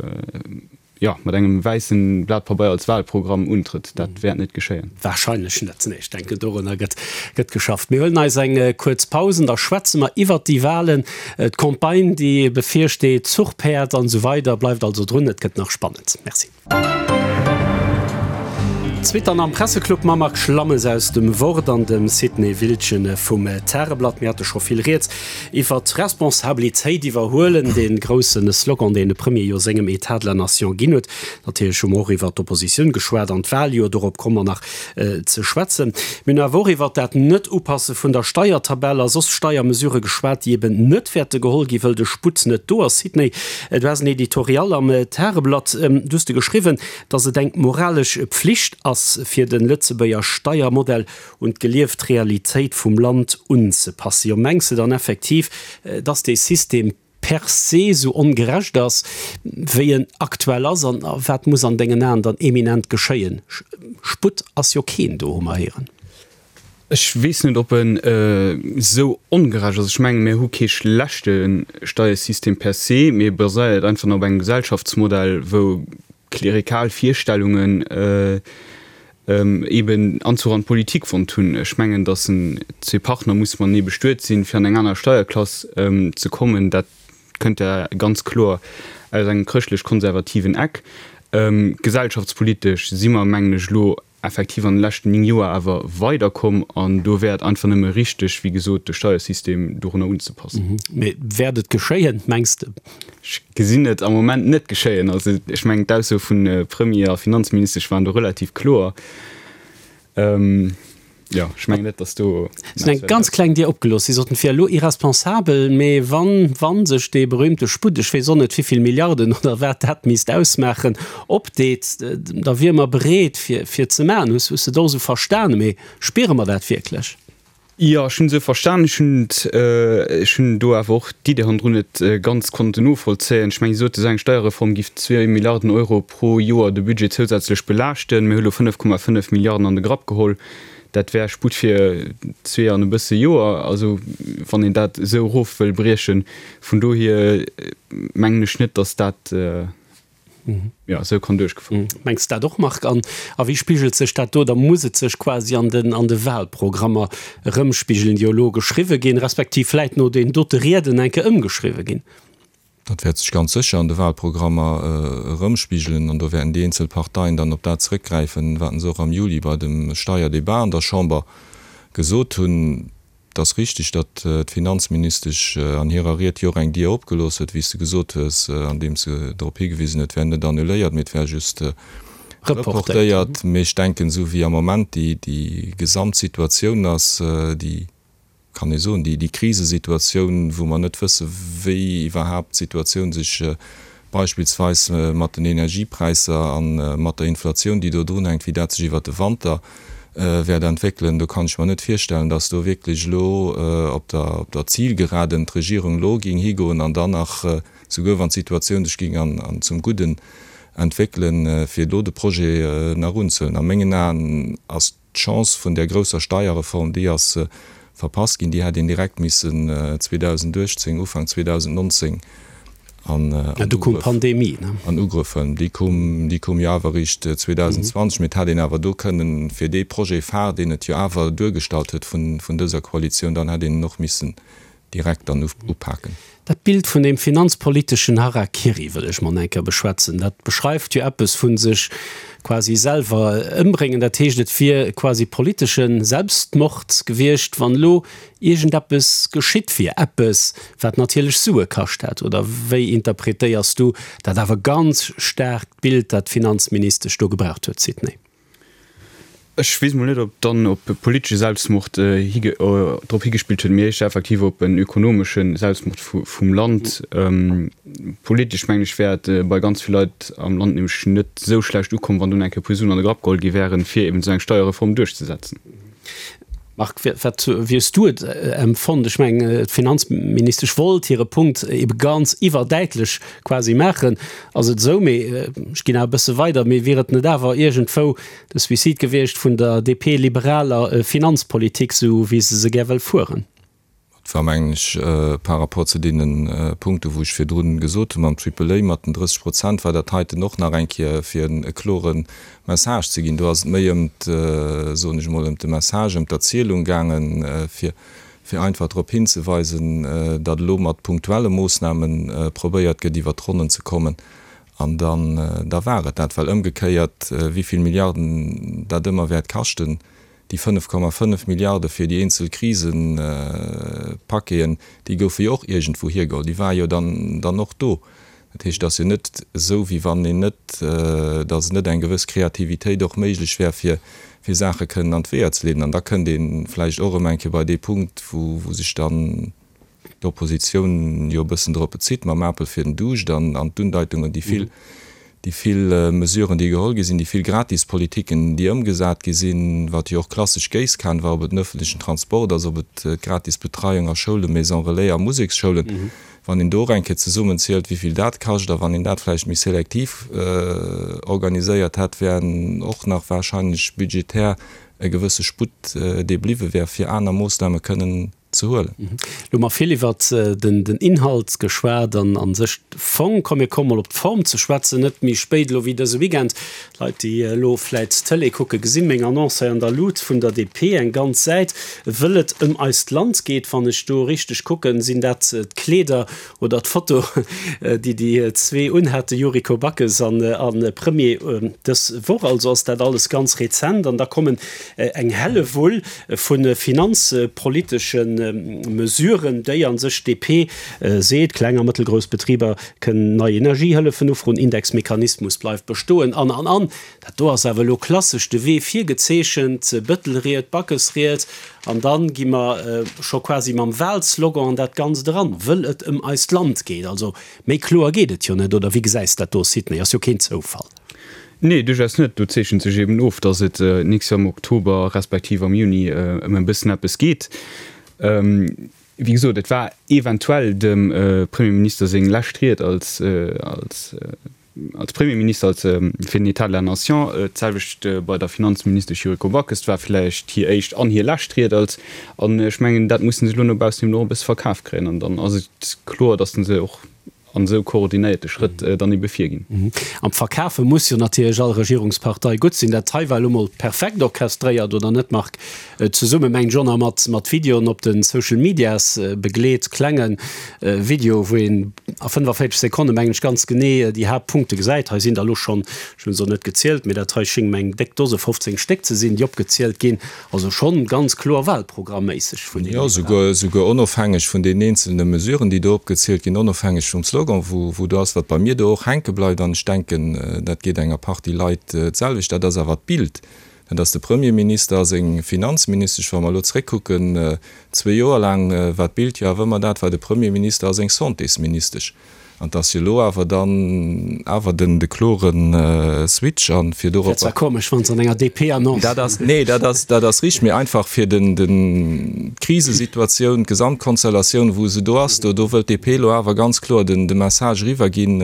E: jo, mat engem wäissen Blat Pabeier als Wahlprogramm untrëtt. Dat wäert net geschéien.
C: Wahrscheinlech net, nee. Ech denken, dorunner gëtt, gëtt geschafft. Mir huelen eis eng kuerz Paus an da schwätze mer iwwert déi Wahlen, d'Campagne, déi bevirsteet, d'Zuchpäerd an esou weider. Bleift also drun, et gëtt nach spannend. Merci. D'Suite dann am Presseclub mam Marc Schlammes aus dem Wort an dem Sidney Wildgen vum Tageblatt. Mir hate scho vill rieds Iwwer d'Responsabilitéit iwwerhuelen, dee grousse Slogan, deen de Premier jo sengem Etat de la Nation ginn huet. Natierlech hu mer och iwwer d'Oppositioun geschwat an d'Waljoer, dorop komme mer nach ze schwätzen. Mir hunn awer och iwwer dat Net-Upasse vun der Steiertabell a soss Steiermesurë geschwat, déi eben net wäerte geholl ginn, wëll de Sputt net do ass. Sidney, du has en Editorial am Tageblatt, du hues de geschriwwen, datt et eng moralesch Pflicht ass, fir de Lëtzebuerger Steiermodell un d'gelieft Realitéit vum Land unzepassen. Jo, mengs de dann effektiv, dass dee System per se esou ongerecht ass, wéi en aktuell ass? An wat muss an dengen Aen dann eminent geschéien? Sputt ass jo keen do, hu mer héieren.
E: Ech weess net, ob en esou ongerecht ass. Ech mengen, mir hu kee schlechte Steiersystem per se, mee e baséiert einfach nach op engem Gesellschaftsmodell, wou klerikal Virstellungen eben Anzuch an d'Politik fonnt hunn. Ech mengen, datt en zwee Partner musse matenee bestuet sinn, fir an eng aner Steierklass ze kommen. Dat kënnt ja ganz kloer aus engem chrëschtlech-konservativen Eck. Gesellschaftspolitesch si mer, mengen ech, elo effektiv an de leschten 9 Joer awer weiderkomm an do wär et einfach nëmme richteg, wéi gesot, de Steiersystem dorunner unzepassen.
C: Mee wäert et geschéien, mengs de?
E: Ech gesinn et am Moment net geschéien. Also ech mengen, d'Ausso vu Premier a Finanzministesch waren do relativ kloer. Jo, ech mengen net, datt do.
C: Si hunn eng ganz kleng Dier opgelooss. Si soten, et wier elo irresponsabel, mee wann, wann sech dee berühmte Sputt, ech weess och net wivill Milliarden oder wat dat misst ausmaachen, opdeet, da wiere mer bereet fir, fir ze maachen. Hues, hues de et och esou verstanen? Mee spiere mer dat wierklech?
E: Jo, ech hunn esou verstan. Ech hunn ech hunn do awer och d'Idee hannendrun net ganz konnten novollzéien. Ech mengen, si sote, esou eng Steierreform giff zwee Milliarden Euro pro Joer de Budget zousätzlech belaaschten. Mir hu lo 5,5 Milliarden an de Grapp geholl. Dat wär Sputt fir zwee an e bësse Joer. Also, wann een dat esou erof wëll briechen. Vun dohier mengen ech net, datt dat. Jo, esou kann duerchgefouert
C: ginn. Mengs de dat och, Marc? An a wéi spigelt sech dat do? Da muss et sech quasi an den, an de Wahlprogrammer erëmspigelen, déi jo elo geschriwwe ginn, respektiv vläit no deenen dote Rieden eng Kéier ëmgeschriwwe ginn.
D: Dat wäert sech ganz sécher an de Wahlprogrammer erëmspigelen an do wäerten déi eenzel Parteien dann op dat zrëckgräifen, wat se och am Juli bei dem Steierdebat an der Chamber gesot hunn. Et ass richtig, datt d'Finanzministesch an hirer Ried jo och eng Dier opgelooss huet, wéi s de gesot hues, andeems se drop higewisen huet, et wär net annuléiert, mee et wär just reportéiert. Mee ech denken, esou wéi am Moment déi Gesamtsituatioun ass, déi, kann ee soen, déi Krisesituatioun, wou mer net wësse wéi iwwerhaapt d'Situatioun sech beispillsweis mat den Energiepräisser a mat der Inflatioun, déi do drunhänkt, wéi dat sech iwwert de Wanter wäert entwéckelen, do kann ech mer net virstellen, datt do wierklech elo op der op der Zielgeraden d'Regierung elo géing higoen an dann nach, souguer wann d'Situatioun sech géing an zum Gudden entwéckelen, fir do de Projet nach unzehuelen. A mengen Aen ass D'Chance vun där grousser Steierreform, déi ass verpasst ginn. Déi hätt een direkt missen 2018, Ufank 2019 an Ugrëff huelen. Déi koum, déi koum jo awer eréischt 2020. Mee et hätt een awer do kënnen, fir dee Projet phare, deen et jo awer duergestallt huet vun dëser Koalitioun, dann hätt een en och missen direkt dann upaken.
C: Dat Bild vun deem finanzpoliteschen Harakiri wëll ech mol eng Kéier beschwätzen. Dat beschreift jo eppes vu sech quasi selwer ëmbréngen. Dat heescht, et wier quasi politesche Selbstmord gewiescht, wann elo iergendeppes geschitt wier, eppes, wat natierlech Sue kascht hätt. Oder wéi interpretéiers du dat awer ganz staarkt Bild, dat d'Finanzministesch do gebraucht huet, Sidney?
E: Ech weess mol net, ob dann op politesche Selbstmord drop higespillt huet, mee éischter effektiv op en ökonomesche Selbstmord vum Land. Politesch, mengen ech, wär et bei ganz vill Leit am Land nämlech net esou schlecht ukomm, wann dunn eng Kéier e puer Suen an de Grapp geholl gi wären, fir eben esou eng Steierreform duerchzesetzen.
C: Marc, wat, wéi hues du et empfonnt? Ech mengen, d'Finanzministesch wollt hire Punkt ebe ganz iwwerdäitlech quasi maachen. Ass et esou? Mee ech ginn awer e bësse weider, mee wier et net awer iergendwou de Suicide gewiescht vun der DP-liberaler Finanzpolitik, esou wéi se se gär wëll fueren?
D: Et war, mengen ech, par rapport zu deene Punkte wou ech virdrun gesot hu mam Triple A, mat den 30 Prozent, war dat heiten och nach eng Kéier fir e klore Message ze ginn. Do ass et méi ëm, soen ech emol, ëm de Message, ëm d'Erzielung gaangen, fir fir einfach drop hinzeweisen, datt elo mat punktuelle Moossname probéiert gëtt iwwert d'Ronnen ze kommen. An dann, da war et dat. Well ëmgekéiert, wéi vill Milliarden dat ëmmer wäert kaschten, Déi 5,5 Milliarde fir déi eenzel Krisepaqueten, déi goufe jo och iergendwou hiergeholl. Déi ware jo dann dann och do. Dat heescht, et ass jo net esou, wéi wann een net, datt net eng gewëss Kreativitéit och méiglech wär, fir fir Saache kënnen an d'Weeër ze leeden. An da kënnt ee vläicht och erëm eng Kéier bei dee Punkt, wou wou sech dann d'Oppositioun jo e bëssen drop bezitt, mam Apel fir den Duuscht an d'Undeitungen, déi vill, déi vill Mesuren, déi geholl gi sinn, déi vill Gratispolitiken, déi ëmgesat gi sinn, wat jo och klassesch Géisskan war, ob et den öffentlichen Transport ass, ob et d'gratis Betreiung a Schoulen, Maisons relais a Museksschoulen, wann een do och eng Kéier zesummenzielt, wéi vill dat kascht, a wann een dat vläicht méi selektiv organiséiert hätt, wären och nach wahrscheinlech budgetär e gewësse Sputt, dee bliwwe wär, fir aner Moossname kënnen ze huelen.
C: Lo hu mer vill iwwert den Inhalt geschwat an a sech de Fong. Komm mir komme mol op d'Form ze schwätzen, net méi spéit elo wéi dëse Weekend. D'Leit déi elo vläit d'Tëlee kucken, gesi meng Annonce hei an der Lut vun der DP, eng ganz Säit, wëll et ëm eist Land geet. Wann ech do richteg kucken, sinn dat d'Kleeder oder d'Foto, déi déi zwee unhaten, Yuriko Backes an Premier dës Woch. Also ass dat alles ganz rezent. An da kommen eng Hellewull vu finanzpolitesche Mesuren, déi a sech d'DP seet, kleng a mëttelgrouss Betriber kënnen nei Energiehëllefen ufroen, Indexmechanismus bleift bestoen an, an, an. Dat do ass awer elo klassesch de Wee virgezeechent, Bëttelried, Backesried, an da gi mer scho quasi mam Wahlslogan an dat Ganzt eran, wëll et ëm eist Land geet. Also méi kloer geet et jo net, oder wéi gesäis dat do, Sidney? Ass jo keen Zoufall.
E: Nee, duerchaus net. Do zeechent sech eben of, datt et d'nächst Joer am Oktober respektiv am Juni ëm e bëssen eppes geet. Wéi gesot, et war eventuell dem Premierminister seng lescht Ried als, als, als Premierminister, als fir den État de la Nation. D'selwecht bei der Finanzministesch Yuriko Backes. Et war vläicht hir éischt an hir lescht Ried als. An ech mengen, dat musse se elo no baussen eben och e bësse verkaf kréien. An dann ass et kloer, datt se och. an esou koordinéierte Schrëtt dann ebe virginn.
C: Am Verkafe muss jo natierlech all Regierungspartei gutt sinn. Dat hei war elo mol perfekt orchestréiert, oder net, Marc? Zesumme mengt ech och nach mat mat Videoen op de Social Medias begleet, klenge Video, wou een a 45 Sekonne mengen ech ganz genee déi Haaptpunkte gesäit. Hei sinn der elo schonn, ech hunn se och net gezielt, mee dat hei schéngt mer eng déck Dose, 15 Stéck ze sinn, déi opgezielt ginn. Also schonn ganz kloer wahlprogramméisseg vun
D: deenen. Jo, souguer, souguer onofhängeg vun deenen eenzelne Mesuren, déi do opgezielt ginn, onofhängeg vum Slogan, wou, wou do ass, wat bei mir do och hänke bleift, an ech denken, dat geet enger Partie Leit d'selwecht, dat ass awer d'Bild, dat ass de Premierminister a seng Finanzministesch. Wa mer elo zréckkucken, zwee Joer laang war d'Bild jo awer ëmmer dat, war de Premierminister a seng Santésministesch. An et ass jo elo awer dann awer den de klore Switch an fir
C: dorop. Wär zwar komesch, wann se an enger DP-Annonce.
D: Dat ass, nee, dat ass, dat ass richteg, mee einfach fir den, den, d'Krisesituatioun, d'Gesamtkonstellatioun, wou se do ass, do, do wëllt d'DP elo awer ganz kloer den, de Message eriwwerginn,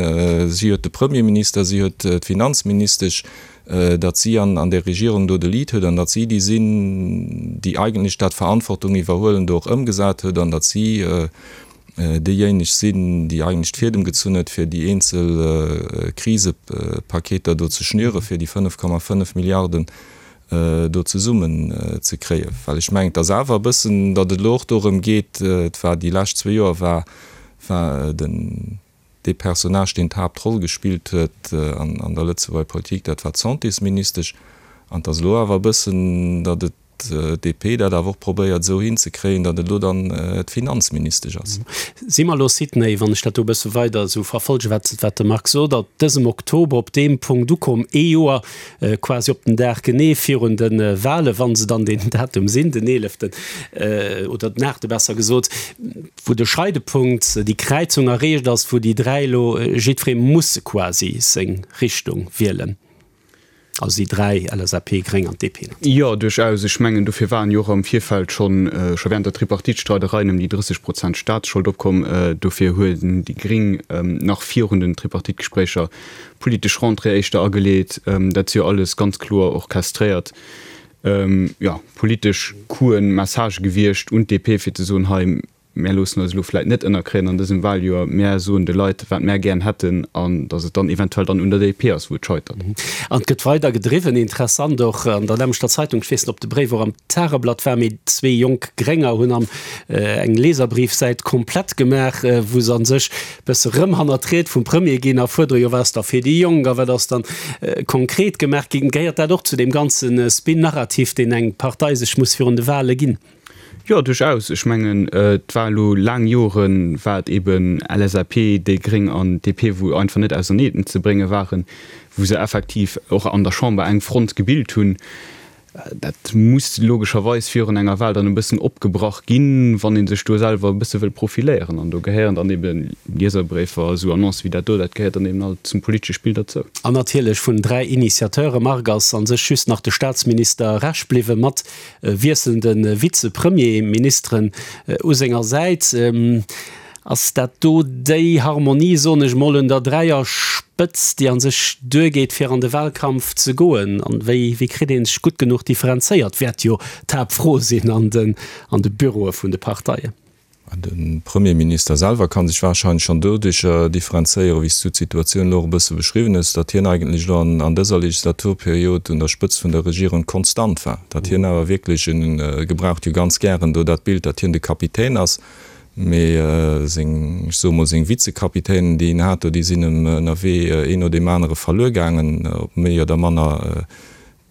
D: si huet de Premierminister, si huet d'Finanzministesch, datt si an, an där Regierung do de Lead huet an datt si déi sinn, déi eigentlech dat Verantwortung iwwerhuelen do och ëmgesat huet an datt si, déijéineg sinn, déi eigentlech d'Fiedem gezunn huet, fir déi eenzel Krisepaketer do ze schnüren, fir déi 5,5 Milliarden do zesummen ze kréien. Well ech mengen, et ass awer e bëssen, datt et elo och dorëm geet, et war déi lescht zwee Joer war, war den, dee Personnage, deen d'Haaptroll gespillt huet an der Lëtzebuerger Politik, dat war d'Santésministesch. An et ass elo awer e bëssen, datt et d'DP dat awer och probéiert esou hinzekréien, datt et elo dann d'Finanzministesch ass.
C: Si mer elo, Sidney, wann ech dat do e bësse weider esou verfolgen, wat wat de Marc sot, ab dësem Oktober op deem Punkt ukomm, ee Joer quasi op den Dag genee virun de Wahlen, wa se dann deen Datum sinn, den eeleften oder den aachte besser gesot, wou de Scheidepunkt, déi Kräizung erreecht ass, wou déi 3 elo jiddweree musse quasi seng Richtung wielen. Also déi 3, LSAP, Gréng an DP
E: natierlech. Jo, duerchaus. Ech mengen, dofir waren jo och am Virfeld schonn, scho während der Tripartite-Streidereien ëm déi 30 Prozent Staatsschold opkomm. Dofir hunn déi Gréng nach virun den Tripartite-Gespréicher politesch Rentrée éischter ageleet. Dat si jo alles ganz kloer orchestréiert, jo, politesch Coup'en, Messagë gewiescht un d'DP, fir ze soen, hei, Mär loossen eis elo vläit net ënnerkréien an dësem Wahljoer, mär soen de Leit, wat mär gären hätten, an datt et dann eventuell dann un der DP ass, wou et scheitert.
C: An et gëtt weider gedriwwen. Interessant och an der nämmlechter Zeitung, ech weess net, ob de Bréif och am Tageblatt war, mee zwee jonk Grénger hunn am eng Leserbriefsäit komplett gemaach, wou se a sech e bësse rëm hannert d'Ried vum Premier ginn a fuerdere, jo wat ass da fir déi Jonk a wat ass dann konkret gemaach ginn. Gehéiert dat och zu deem ganze Spin-Narrativ, deen eng Partei sech muss virun de Wahle ginn?
E: Jo, duerchaus. Ech mengen, et war elo laang Jore war et eben LSAP, déi Gréng an DP, wou einfach net auserneen ze brénge waren, wou se effektiv och an der Chamber eng Front gebilt hunn. Dat muss logescherweis virun enger Wahl dann e bëssen opgebrach ginn, wann ee sech do selwer e bësse wëll profiléieren. An do gehéieren dann ebe Lieserbréifer, esou Annoncë wéi dat do, dat gehéiert dann eben alt zum politesche Spill derzou.
C: An natierlech vun 3 Initiateure, Marc, ass a sech just nach de Staatsminister Rech bliwwen, mat wiesselnde Vize-Premierministeren u senger Säit. Ass dat do déi Harmonie, soen ech mol, un der Dräierspëtz, déi a sech duergeet, fir an de Wahlkampf ze goen? An wéi wéi kritt ee sech gutt genuch differenzéiert, wäert jo d'Haaptfro sinn an de Büroe vun de Parteien.
D: De Premierminister selwer ka sech wahrscheinlech schonn doduercher differenzéieren, wéi s du d'Situatioun elo och e bësse beschriwwen hues, datt hien eigentlech elo an dëser Legislaturperiod un der Spëtzt vun der Regierung konstant war, datt hien awer wierklech, en gebraucht jo ganz gären do dat Bild, datt hien de Kapitän ass, mee seng, ech soe mol, seng Vizekapitänen, déi en hat do, déi sinn em ënnerwee een no deem anere verluer gaangen, op méi oder manner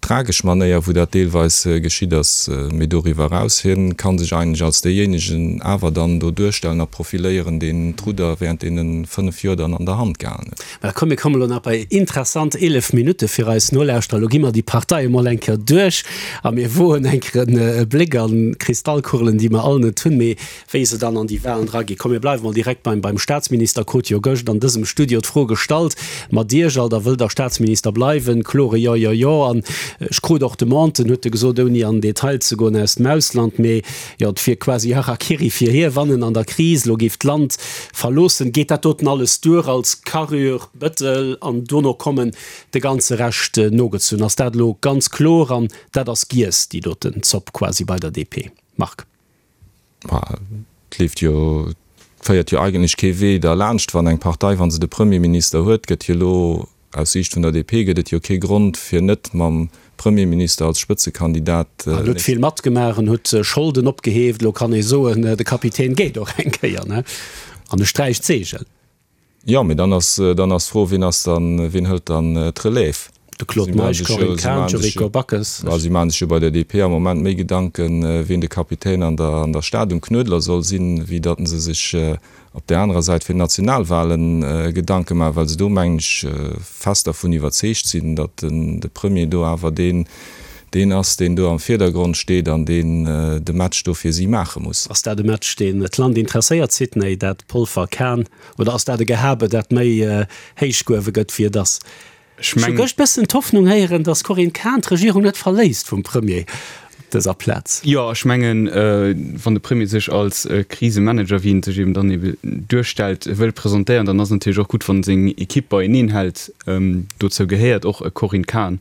D: Tragesch Manéier, wou dat deelweis geschitt ass, mee doriwwer eraus, hien ka sech eigentlech als deejéinegen awer dann do duerstellen a profiléieren, deen d'Rudder während deene 5 Joer dann an der Hand gehalen huet.
C: Mä komm, mir kommen elo nach bei interessant 11 Minutte fir eis Nolauschterer. Elo gi mer déi Parteie mol eng Kéier duerch a mir woen eng Kéier e Bléck an d'Kristallkugelen, déi mer all net hunn, mee wéi se dann an déi Wahlen draginn. Komm, mir bleiwe mol direkt beim, beim Statsminister. Krut jo gëscht an dësem Studio d'Fro gestallt, Mat Iech all, da wëllt Der Statsminister bleiwen? Klore Jo, jo, jo. An ech krut och Demanden, huet e gesot, ouni an den Detail ze goen, aus dem Ausland. Mee jo, et wier quasi Harakiri fir hie, wann en an der Kris elo géif d'Land verloossen. Geet dat doten alles duer als Carrure, Bëttel an dono kommen de ganze Rescht nogezunn? Ass dat elo ganz kloer an dat ass giess, déi doten Zopp quasi bei der DP? Marc.
D: Ma et leeft jo. Féiert jo eigentlech kee Wee derlaanscht, wann eng Partei, wa se de Premierminister huet, gëtt jo elo, aus Siicht vun der DP gëtt et jo kee Grond fir net mam Premierminister als Spëtzekandidat.
C: En huet vill matgemaach, en huet Scholden opgeheeft, elo kann ee soen, de Kapitän geet och eng Kéier, ne? An e sträicht d'Seegel.
D: Jo, mee dann ass, dann ass d'Fro, wien ass dann, wien hëlt dann d'Relève?
C: De Claude Meisch, Corinne Cahen, Yuriko Backes.
D: Si maache sech jo bei der DP am Moment méi Gedanken, wien de Kapitän an der an der Stad um Knuedler soll sinn, wéi datt se sech op där anerer Säit fir d'Nationalwahlen Gedanke maachen, well se do, mengen ech, fest dervun iwwerzeegt sinn, datt den de Premier do awer deen deen ass, deen do am Virdergrond steet an deen de Match do fir si maache muss.
C: Ass dat e Match, deen d'Land interesséiert, Sidney, dat Polfer-Cahen, oder ass dat e Gehabe, dat méi héich gehuewe gëtt, wéi et ass? Ech hu gëscht bëssen d'Hoffnung héieren, datt d'Corinne Cahen d'Regierung net verléisst vum Premier op dëser Plaz.
E: Jo, ech mengen, wann de Premier sech als Krisemanager, wéi en sech eben dann ebe duerstellt, wëll presentéieren, dann ass et natierlech och gutt, wann en seng Ekipp beieneen hält. Dozou gehéiert och e Corinne Cahen.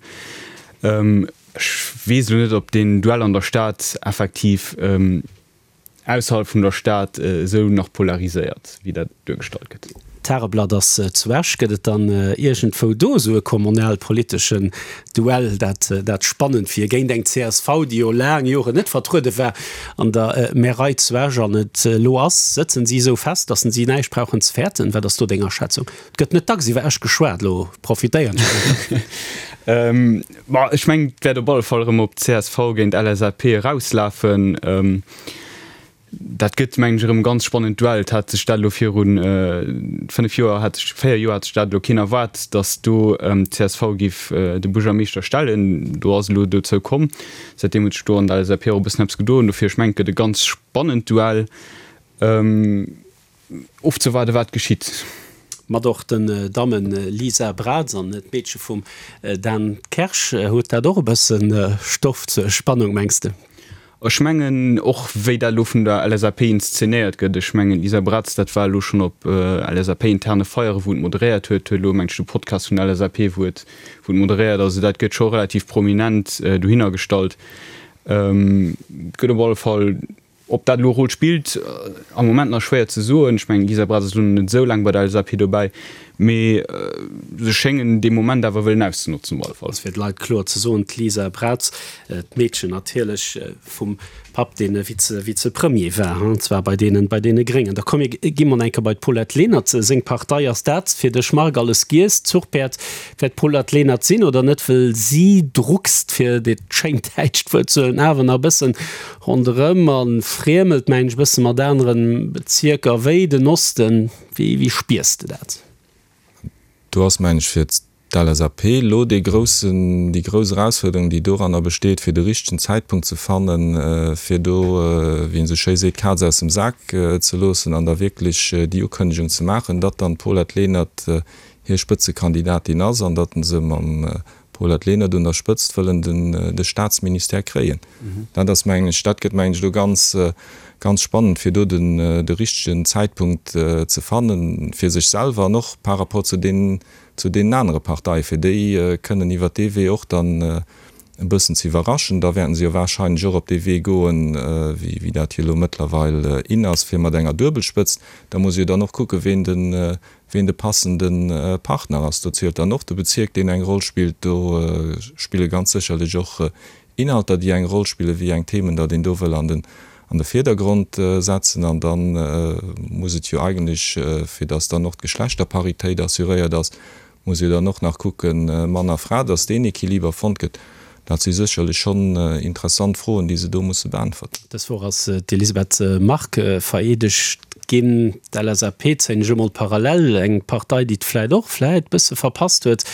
E: Ech weess elo net, ob deen Duell an der Stad effektiv ausserhalb vun der Stad esou nach polariséiert, wéi dat duergestallt gëtt.
C: D'Tageblatt ass zu Esch. Gëtt et dann iergendwou do esou e kommunalpoliteschen Duell, dat dat spannend wier, géint eng csv, déi jo laang Joren net vertruede war an der Märei zu Esch an et elo ass? Sëtzen si esou fest, datt si näischt brauchen ze fäerten? Wat ass do deng Aschätzung? Et gëtt net dacks iwwer Esch geschwat, elo profitéieren ech einfach.
E: Ma ech mengen, et wäert op alle Fall erëm op csv géint LSAP erauslafen. Dat gëtt, mengen ech, erëm e ganz spannend Duell. Et hat sech dat elo viru 5 Joer, hat sech, 4 Joer hat sech dat elo keen erwaart, datt do csv géif de Buergermeeschter stellen. Do ass elo dozou komm. Säitdeem huet sech do an der LSAP och e bëssen eppes gedoen. Dofir, ech mengen, et gëtt e ganz spannend Duell. Ofzewaarde wat geschitt.
C: Mat och den Dammen Lisa Braz an d'Meedche vum Dan Kersch. Huet dat och e bësse Stoff zur Spannung, mengs de?
E: Ech mengen och, wéi dat elo vun der LSAP inszenéiert gëtt. Ech mengen, d'Lisa Braz, dat war elo schonn op LSAP-interne Feiere wou et moderéiert huet, huet elo mengt ech de Podcast vun der LSAP, wou et wou et moderéiert. Also dat gëtt scho relativ prominent dohinner gestallt. Et gëtt op alle Fall Ob dat elo e Rôle spillt, am Moment nach schwéier ze soen. Ech mengen, d'Lisa Braz ass elo net esou laang bei der LSAP dobäi, mee se schéngen dee Moment awer wëllen auszenotzen op alle Fall.
C: Fir de Leit kloer ze soen, d'Lisa Braz, d'Meedchen natierlech vum Papp, dee Vize-Vize-Premier war, an zwar bei deenen, bei deene Gréngen. Da komm mir gi mol eng Kéier bei d'Paulette Lenert. Seng Partei, ass dat fir dech, Marc, alles giess? D'Zuchpäerd wäert d'Paulette Lenert sinn oder net? Wëll si druckst, fir dat schéint däitscht Wuert ze huelen, awer nach e bëssen Ronderëm a friemelt mengen ech e bësse mat aneren Bezierker wéi den Osten. Wéi wéi spiers de dat?
D: Do ass mengen ech fir d'LSAP elo dee groussen, déi grouss Erausfuerderung déi doranner besteet fir de richtegen Zäitpunkt ze fannen, fir do, wéi een esou schéi seet, d'Kaz aus dem Sak ze loossen an da wierklech déi Ukënnegung ze maachen, datt dann d'Paulette Lenert hir Spëtzekandidatin ass an datt se mam Paulette Lenert un der Spëtzt wëllen de Staatsministère kréien. Dat ass, mengen ech, dat gëtt, mengen ech, elo ganz, ganz spannend, fir do den, de richtegen Zäitpunkt ze fannen, fir sech selwer an och par rapport zu deenen, zu deenen anere Parteien, fir déi kënnen iwwert dee Wee och dann e bëssen ze iwwerraschen. Da wäerten se jo wahrscheinlech och op dee Wee goen, wéi, wéi dat jo elo mëttlerweil in ass, fir mat enger Duebelspëtzt. Da muss ee jo dann och kucken, ween den, Ween de passende Partner ass, do zielt dann och de Bezierk, deen eng Roll spillt. Do spille ganz sécherlech och Inhalter, déi eng Roll spillen, wéi eng Themen datt een do wëll an den an de Virdergrond setzen. An da muss et jo eigentlech, fir datt dann och d'Geschlechterparitéit assuréiert ass, muss ee dann och nach kucken, Mann a Fra, datt deen Equiliber fonnt gëtt. Dat si sécherlech schonn interessant Froen, déi se do musse beäntwerten.
C: Dës Woch ass d'Elisabeth Margue vereedegt ginn. D'LSAP zéien ech emol parallel, eng Partei, déi et vläit och vläit bësse verpasst huet,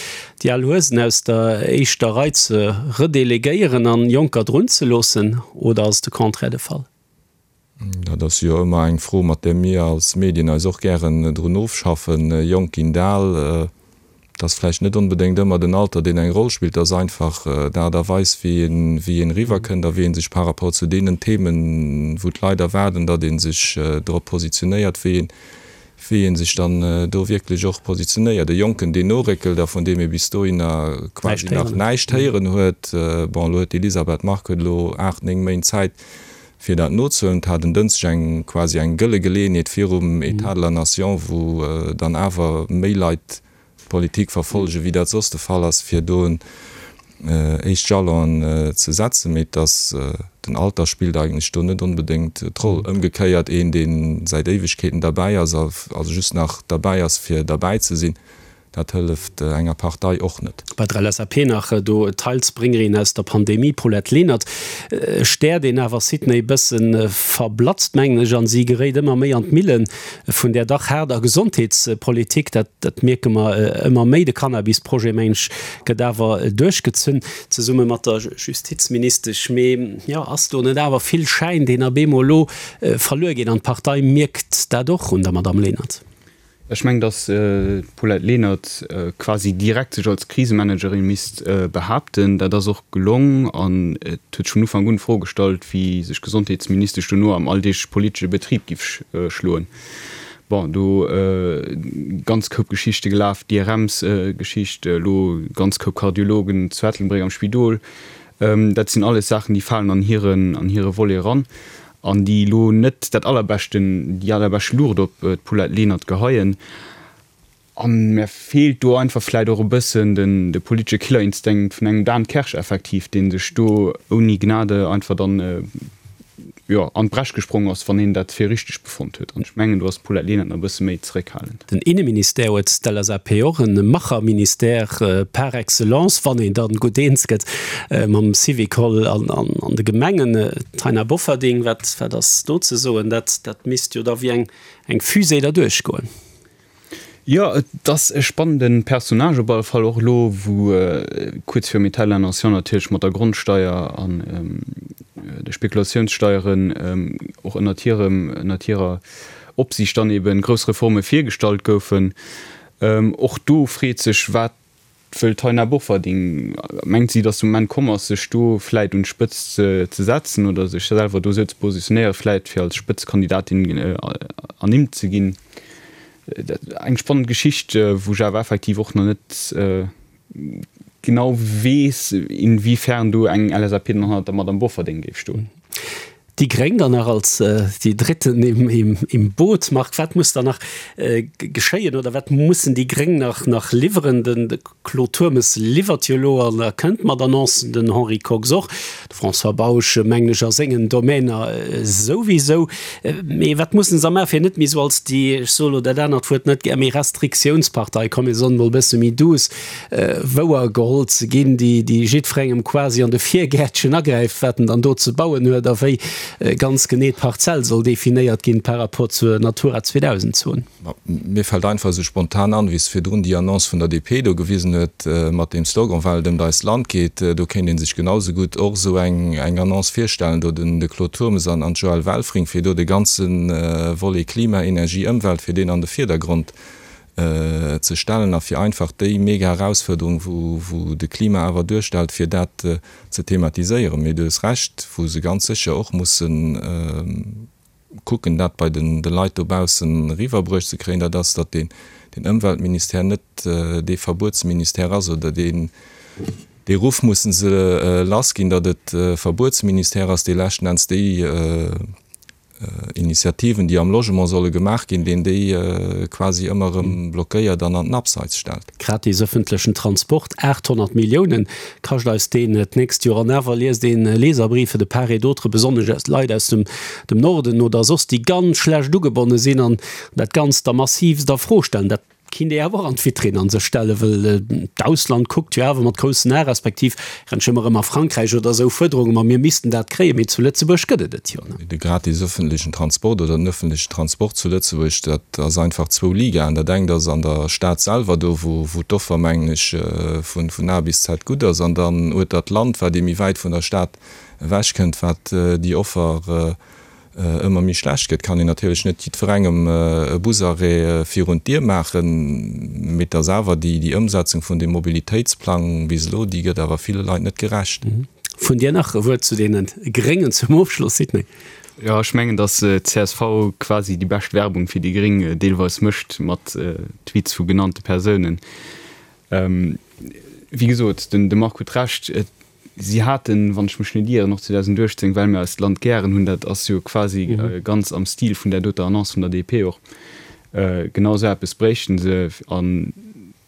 C: déi al Huesen aus der éischter Rei ze redelegéieren an Jonker drun ze loossen. Oder ass de Contraire de Fall?
D: Dat ass jo ëmmer eng Fro, mat där mir als Medien eis och gären drun ofschaffen. Jonk ginn al, et ass vläicht net onbedéngt ëmmer den Alter, deen eng Roll spillt, et ass einfach d'Aart a Weis, wéi een, wéi een eriwwerkënnt a wéi ee sech par rapport zu deenen Themen, wou d'Leit erwaarden, datt ee sech drop positionéiert, wéi een, wéi ee sech dann do wierklech och positionéiert. E Jonken, deen noréckelt a vun deem ee bis dohinner quasi nach näischt héieren huet, bon, elo huet d'Elisabeth Margue huet elo 8, 9 Méint Zäit, Fir dat nozehuelen. Et hat en Dënschdeg eng quasi eng gëlle Geleeënheet virum Etat de la Nation, wou dann awer méi Leit d'Politik verfollegen, wéi dat soss de Fall ass, fir do en éischt Jalonen ze setzen. Mee et ass, den Alter spillt eigentlech do net onbedéngt d'Roll. Ëmgekéiert, een, dee säit Éiwegkeeten derbäi ass, also just nach derbäi ass, fir derbäi ze sinn, Dat hëlleft enger Partei och net.
C: Bei der LSAP nach do d'Heilsbréngerin aus der Pandemie, Paulette Lenert, Stär, deen awer Sydney bësse verblatzt, mengen ech, an si geréit ëmmer méi an d'Mille vun där dach haarder Gesondheetspolitik. Dat dat mierke mer ëmmer méi. De Cannabis-Projet, mengen ech, gëtt awer duerchgezunn, zesumme mat der Justizministesch. Mee jo, ass do net awer vill Schäin, deen ab eemol elo verluer geet? An d'Partei mierkt dat och un der Madamm Lenert.
E: Ech mengen, datt d'Paulette Lenert quasi direkt sech als Krisemanagerin misst behaapten. Dat ass och gelong an et huet sech vun Ufank un d'Fro gestallt, wéi sech d'Gesondheetsministesch dono am alldeegleche politesche Betrib giff schloen. Bon, do ganz Koup Geschichte gelaf, d'IRMs-Geschicht, elo ganz Koup Kardiologen zu Ettelbréck am Spidol. Dat sinn alles Saachen, déi falen an hiren, an hire Volet eran. An déi elo net dat allerbeschten, déi allerbescht Luucht op d'Paulette Lenert geheien. A mär feelt do einfach vläit och e bëssen den, de politesche Killerinstinkt vun engem Dan Kersch effektiv, dee sech do ouni Gnade einfach dann, jo, an d'Bresch gesprong ass, wann hien dat fir richteg befonnt huet. An ech mengen, do ass d'Paulette Lenert nach e bësse méi zeréckhalend.
C: Den Inneministère huet d'LSAP och, e Macherministère par excellence, wann een dann gutt eens gëtt mam Syvicol an de Gemengen. Taina Bofferding, wat wat ass do ze soen? Dat dat misst jo da wéi eng eng Fusée derduerch goen.
E: Jo, et ass e spannende Personnage op alle Fall, och elo wou kuerz virum État de la Nation natierlech mat der Grondsteier an de Spekulatiounssteieren och ënnert hirem, ënnert hirer Opsiicht dann eben grouss Reforme virgestallt goufen. Och do freet sech, wat wëll d'Taina Bofferding? Mengt si, datt de Moment komm ass, sech do vläit un d'Spëtzt ze setzen oder sech selwer do esou ze positionéieren, vläit fir als Spëtzekandidatin ernimmt ze ginn? Eng spannend Geschicht, wou ech awer effektiv och nach net genau weess, inwiefern do eng LSAP dann hannert der Madamm Bofferding géif stoen.
C: Déi Gréng dann nach als déi Dritten im Boot. Marc, wat muss dann nach geschéien oder wat mussen déi Gréng nach nach liwweren? De Claude Turmes liwwert jo elo an kënnt mat Annoncen, den Henri Kox och, de François Bausch mengen ech a sengen Domainer souwisou. Mee wat mussen se maachen, fir net méi esou als déi, ech soe lo dat anert Wuert net gär, méi Restriktiounspartei, komm mir soen emol e bësse méi douce, wouer geholl ze ginn, déi déi jiddwerengem quasi an de Virgäertchen agräift, wat en dann do ze bauen huet a wéi ganz genee d'Parzell soll definéiert ginn par rapport zur Natura 2000 Zon.
D: Mir fält einfach esou spontan an, wéi s virdrun déi Annonce vun der DP do gewisen huet mat deem Slogan Well et ëmt eist Land geet, do kéint ee sech genau sou gutt och esou eng Annonce virstellen, do den de Claude Turmes an d'Joëlle Welfring, fir do de ganze Volet Klima, Energie, Ëmwelt, fir deen an de Virdergrond ze stellen a fir einfach déi mega Erausfuerderung, wou de Klima awer duerstellt, fir dat ze thematiséieren. Mee du hues Recht, wou se ganz sécher och musse kucken, dat bei de Leit dobaussen eriwwerbruecht ze kréien, dat ass, datt deen Ëmweltministère net dee Verbuetsministère ass oder deen, dee Ruff musse se lassginn, datt et e Verbuetsministère ass, dee leschten Enns déi Initiativen, déi am Logement solle gemaach ginn, deen déi quasi ëmmer erëm blockéiert an an den Abseits stellt.
C: Gratis ëffentlechen Transport, 800 Milliounen kascht eis deen d'nächst Joer. An awer liest een Leserbriefe de part et d'autre, besonnesch aus Leit aus dem Norden oder soss, déi ganz schlecht ugebonne sinn an dat Ganzt da massivst a Fro stellen. Dat Kinnt ee awer och an d'Vitrinn an sech stellen, wëll d'Ausland kuckt jo awer mat groussen Ae, respektiv rennt ëmmer erëm a Frankräich oder esou Fuerderunge, ma mir missten dat kréien, mee zu Lëtzebuerg gëtt et et jo
D: net. De gratis ëffentlechen Transport oder den ëffentlechen Transport zu Lëtzebuerg, dat ass einfach zwou Ligaen. Dat engt ass an der Stad selwer, do wou d'Offer, mengen ech, vun A bis Z gutt ass, an dann ueter d'Land, wat ee méi wäit vun der Stad ewechkënnt, wat déi Offer ëmmer méi schlecht gëtt, kann een natierlech net jiddwerengem e Busarrêt virun d'Dier maachen, mee et ass awer déi déi Ëmsetzung vun deem Mobilitéitsplang bis elo, déi gëtt awer ville Leit net gerecht.
C: Vun dir nach e Wuert zu deene Gréngen zum Ofschloss, Sidney.
E: Jo, ech mengen, datt csv quasi déi bescht Werbung fir déi Gréng deelweis mécht mat Tweets vu genannte Persounen. Wéi gesot, de Marc huet Recht. Si haten, wann ech mech net ieren, och 2018, well mir eist Land gären hunn, dat ass jo quasi ganz am Stil vun där doter Annonce vun der DP och, genau esou eppes bréichten se. A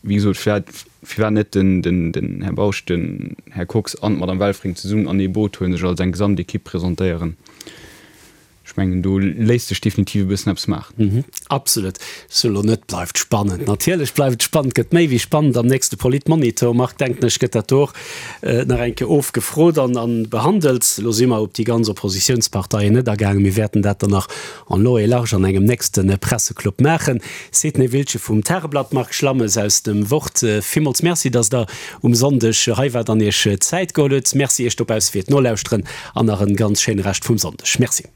E: wéi gesot, firwat, firwat net den, den, den Här Bausch, den Här Kox an d'Madame Welfring zesummen an ee Boot huelen, sech als eng Gesamtekipp presentéieren? Ech mengen, do léisst sech definitiv e bëssen eppes maachen.
C: Absolut. Sou elo net, bleift spannend. Natierlech bleift et spannend, gëtt méi wéi spannend am nächste Politmonitor. Marc, denken ech, gëtt dat do och nach eng Kéier ofgefrot an behandelt. Elo si mer op déi ganz Oppositiounsparteien net agaangen. Mir wäerten dat dann nach en long et large an engem nächste Presseclub maachen. Sidney Wiltgen vum Tageblatt, Marc Schlammes aus dem Wort, villmools Merci, dass Der um Sonndeg hei waart an Iech Zäit geholl hutt. Merci Iech dobausse fir d'Nolauschteren an nach en ganz schéine Rescht vum Sonndeg. Merci.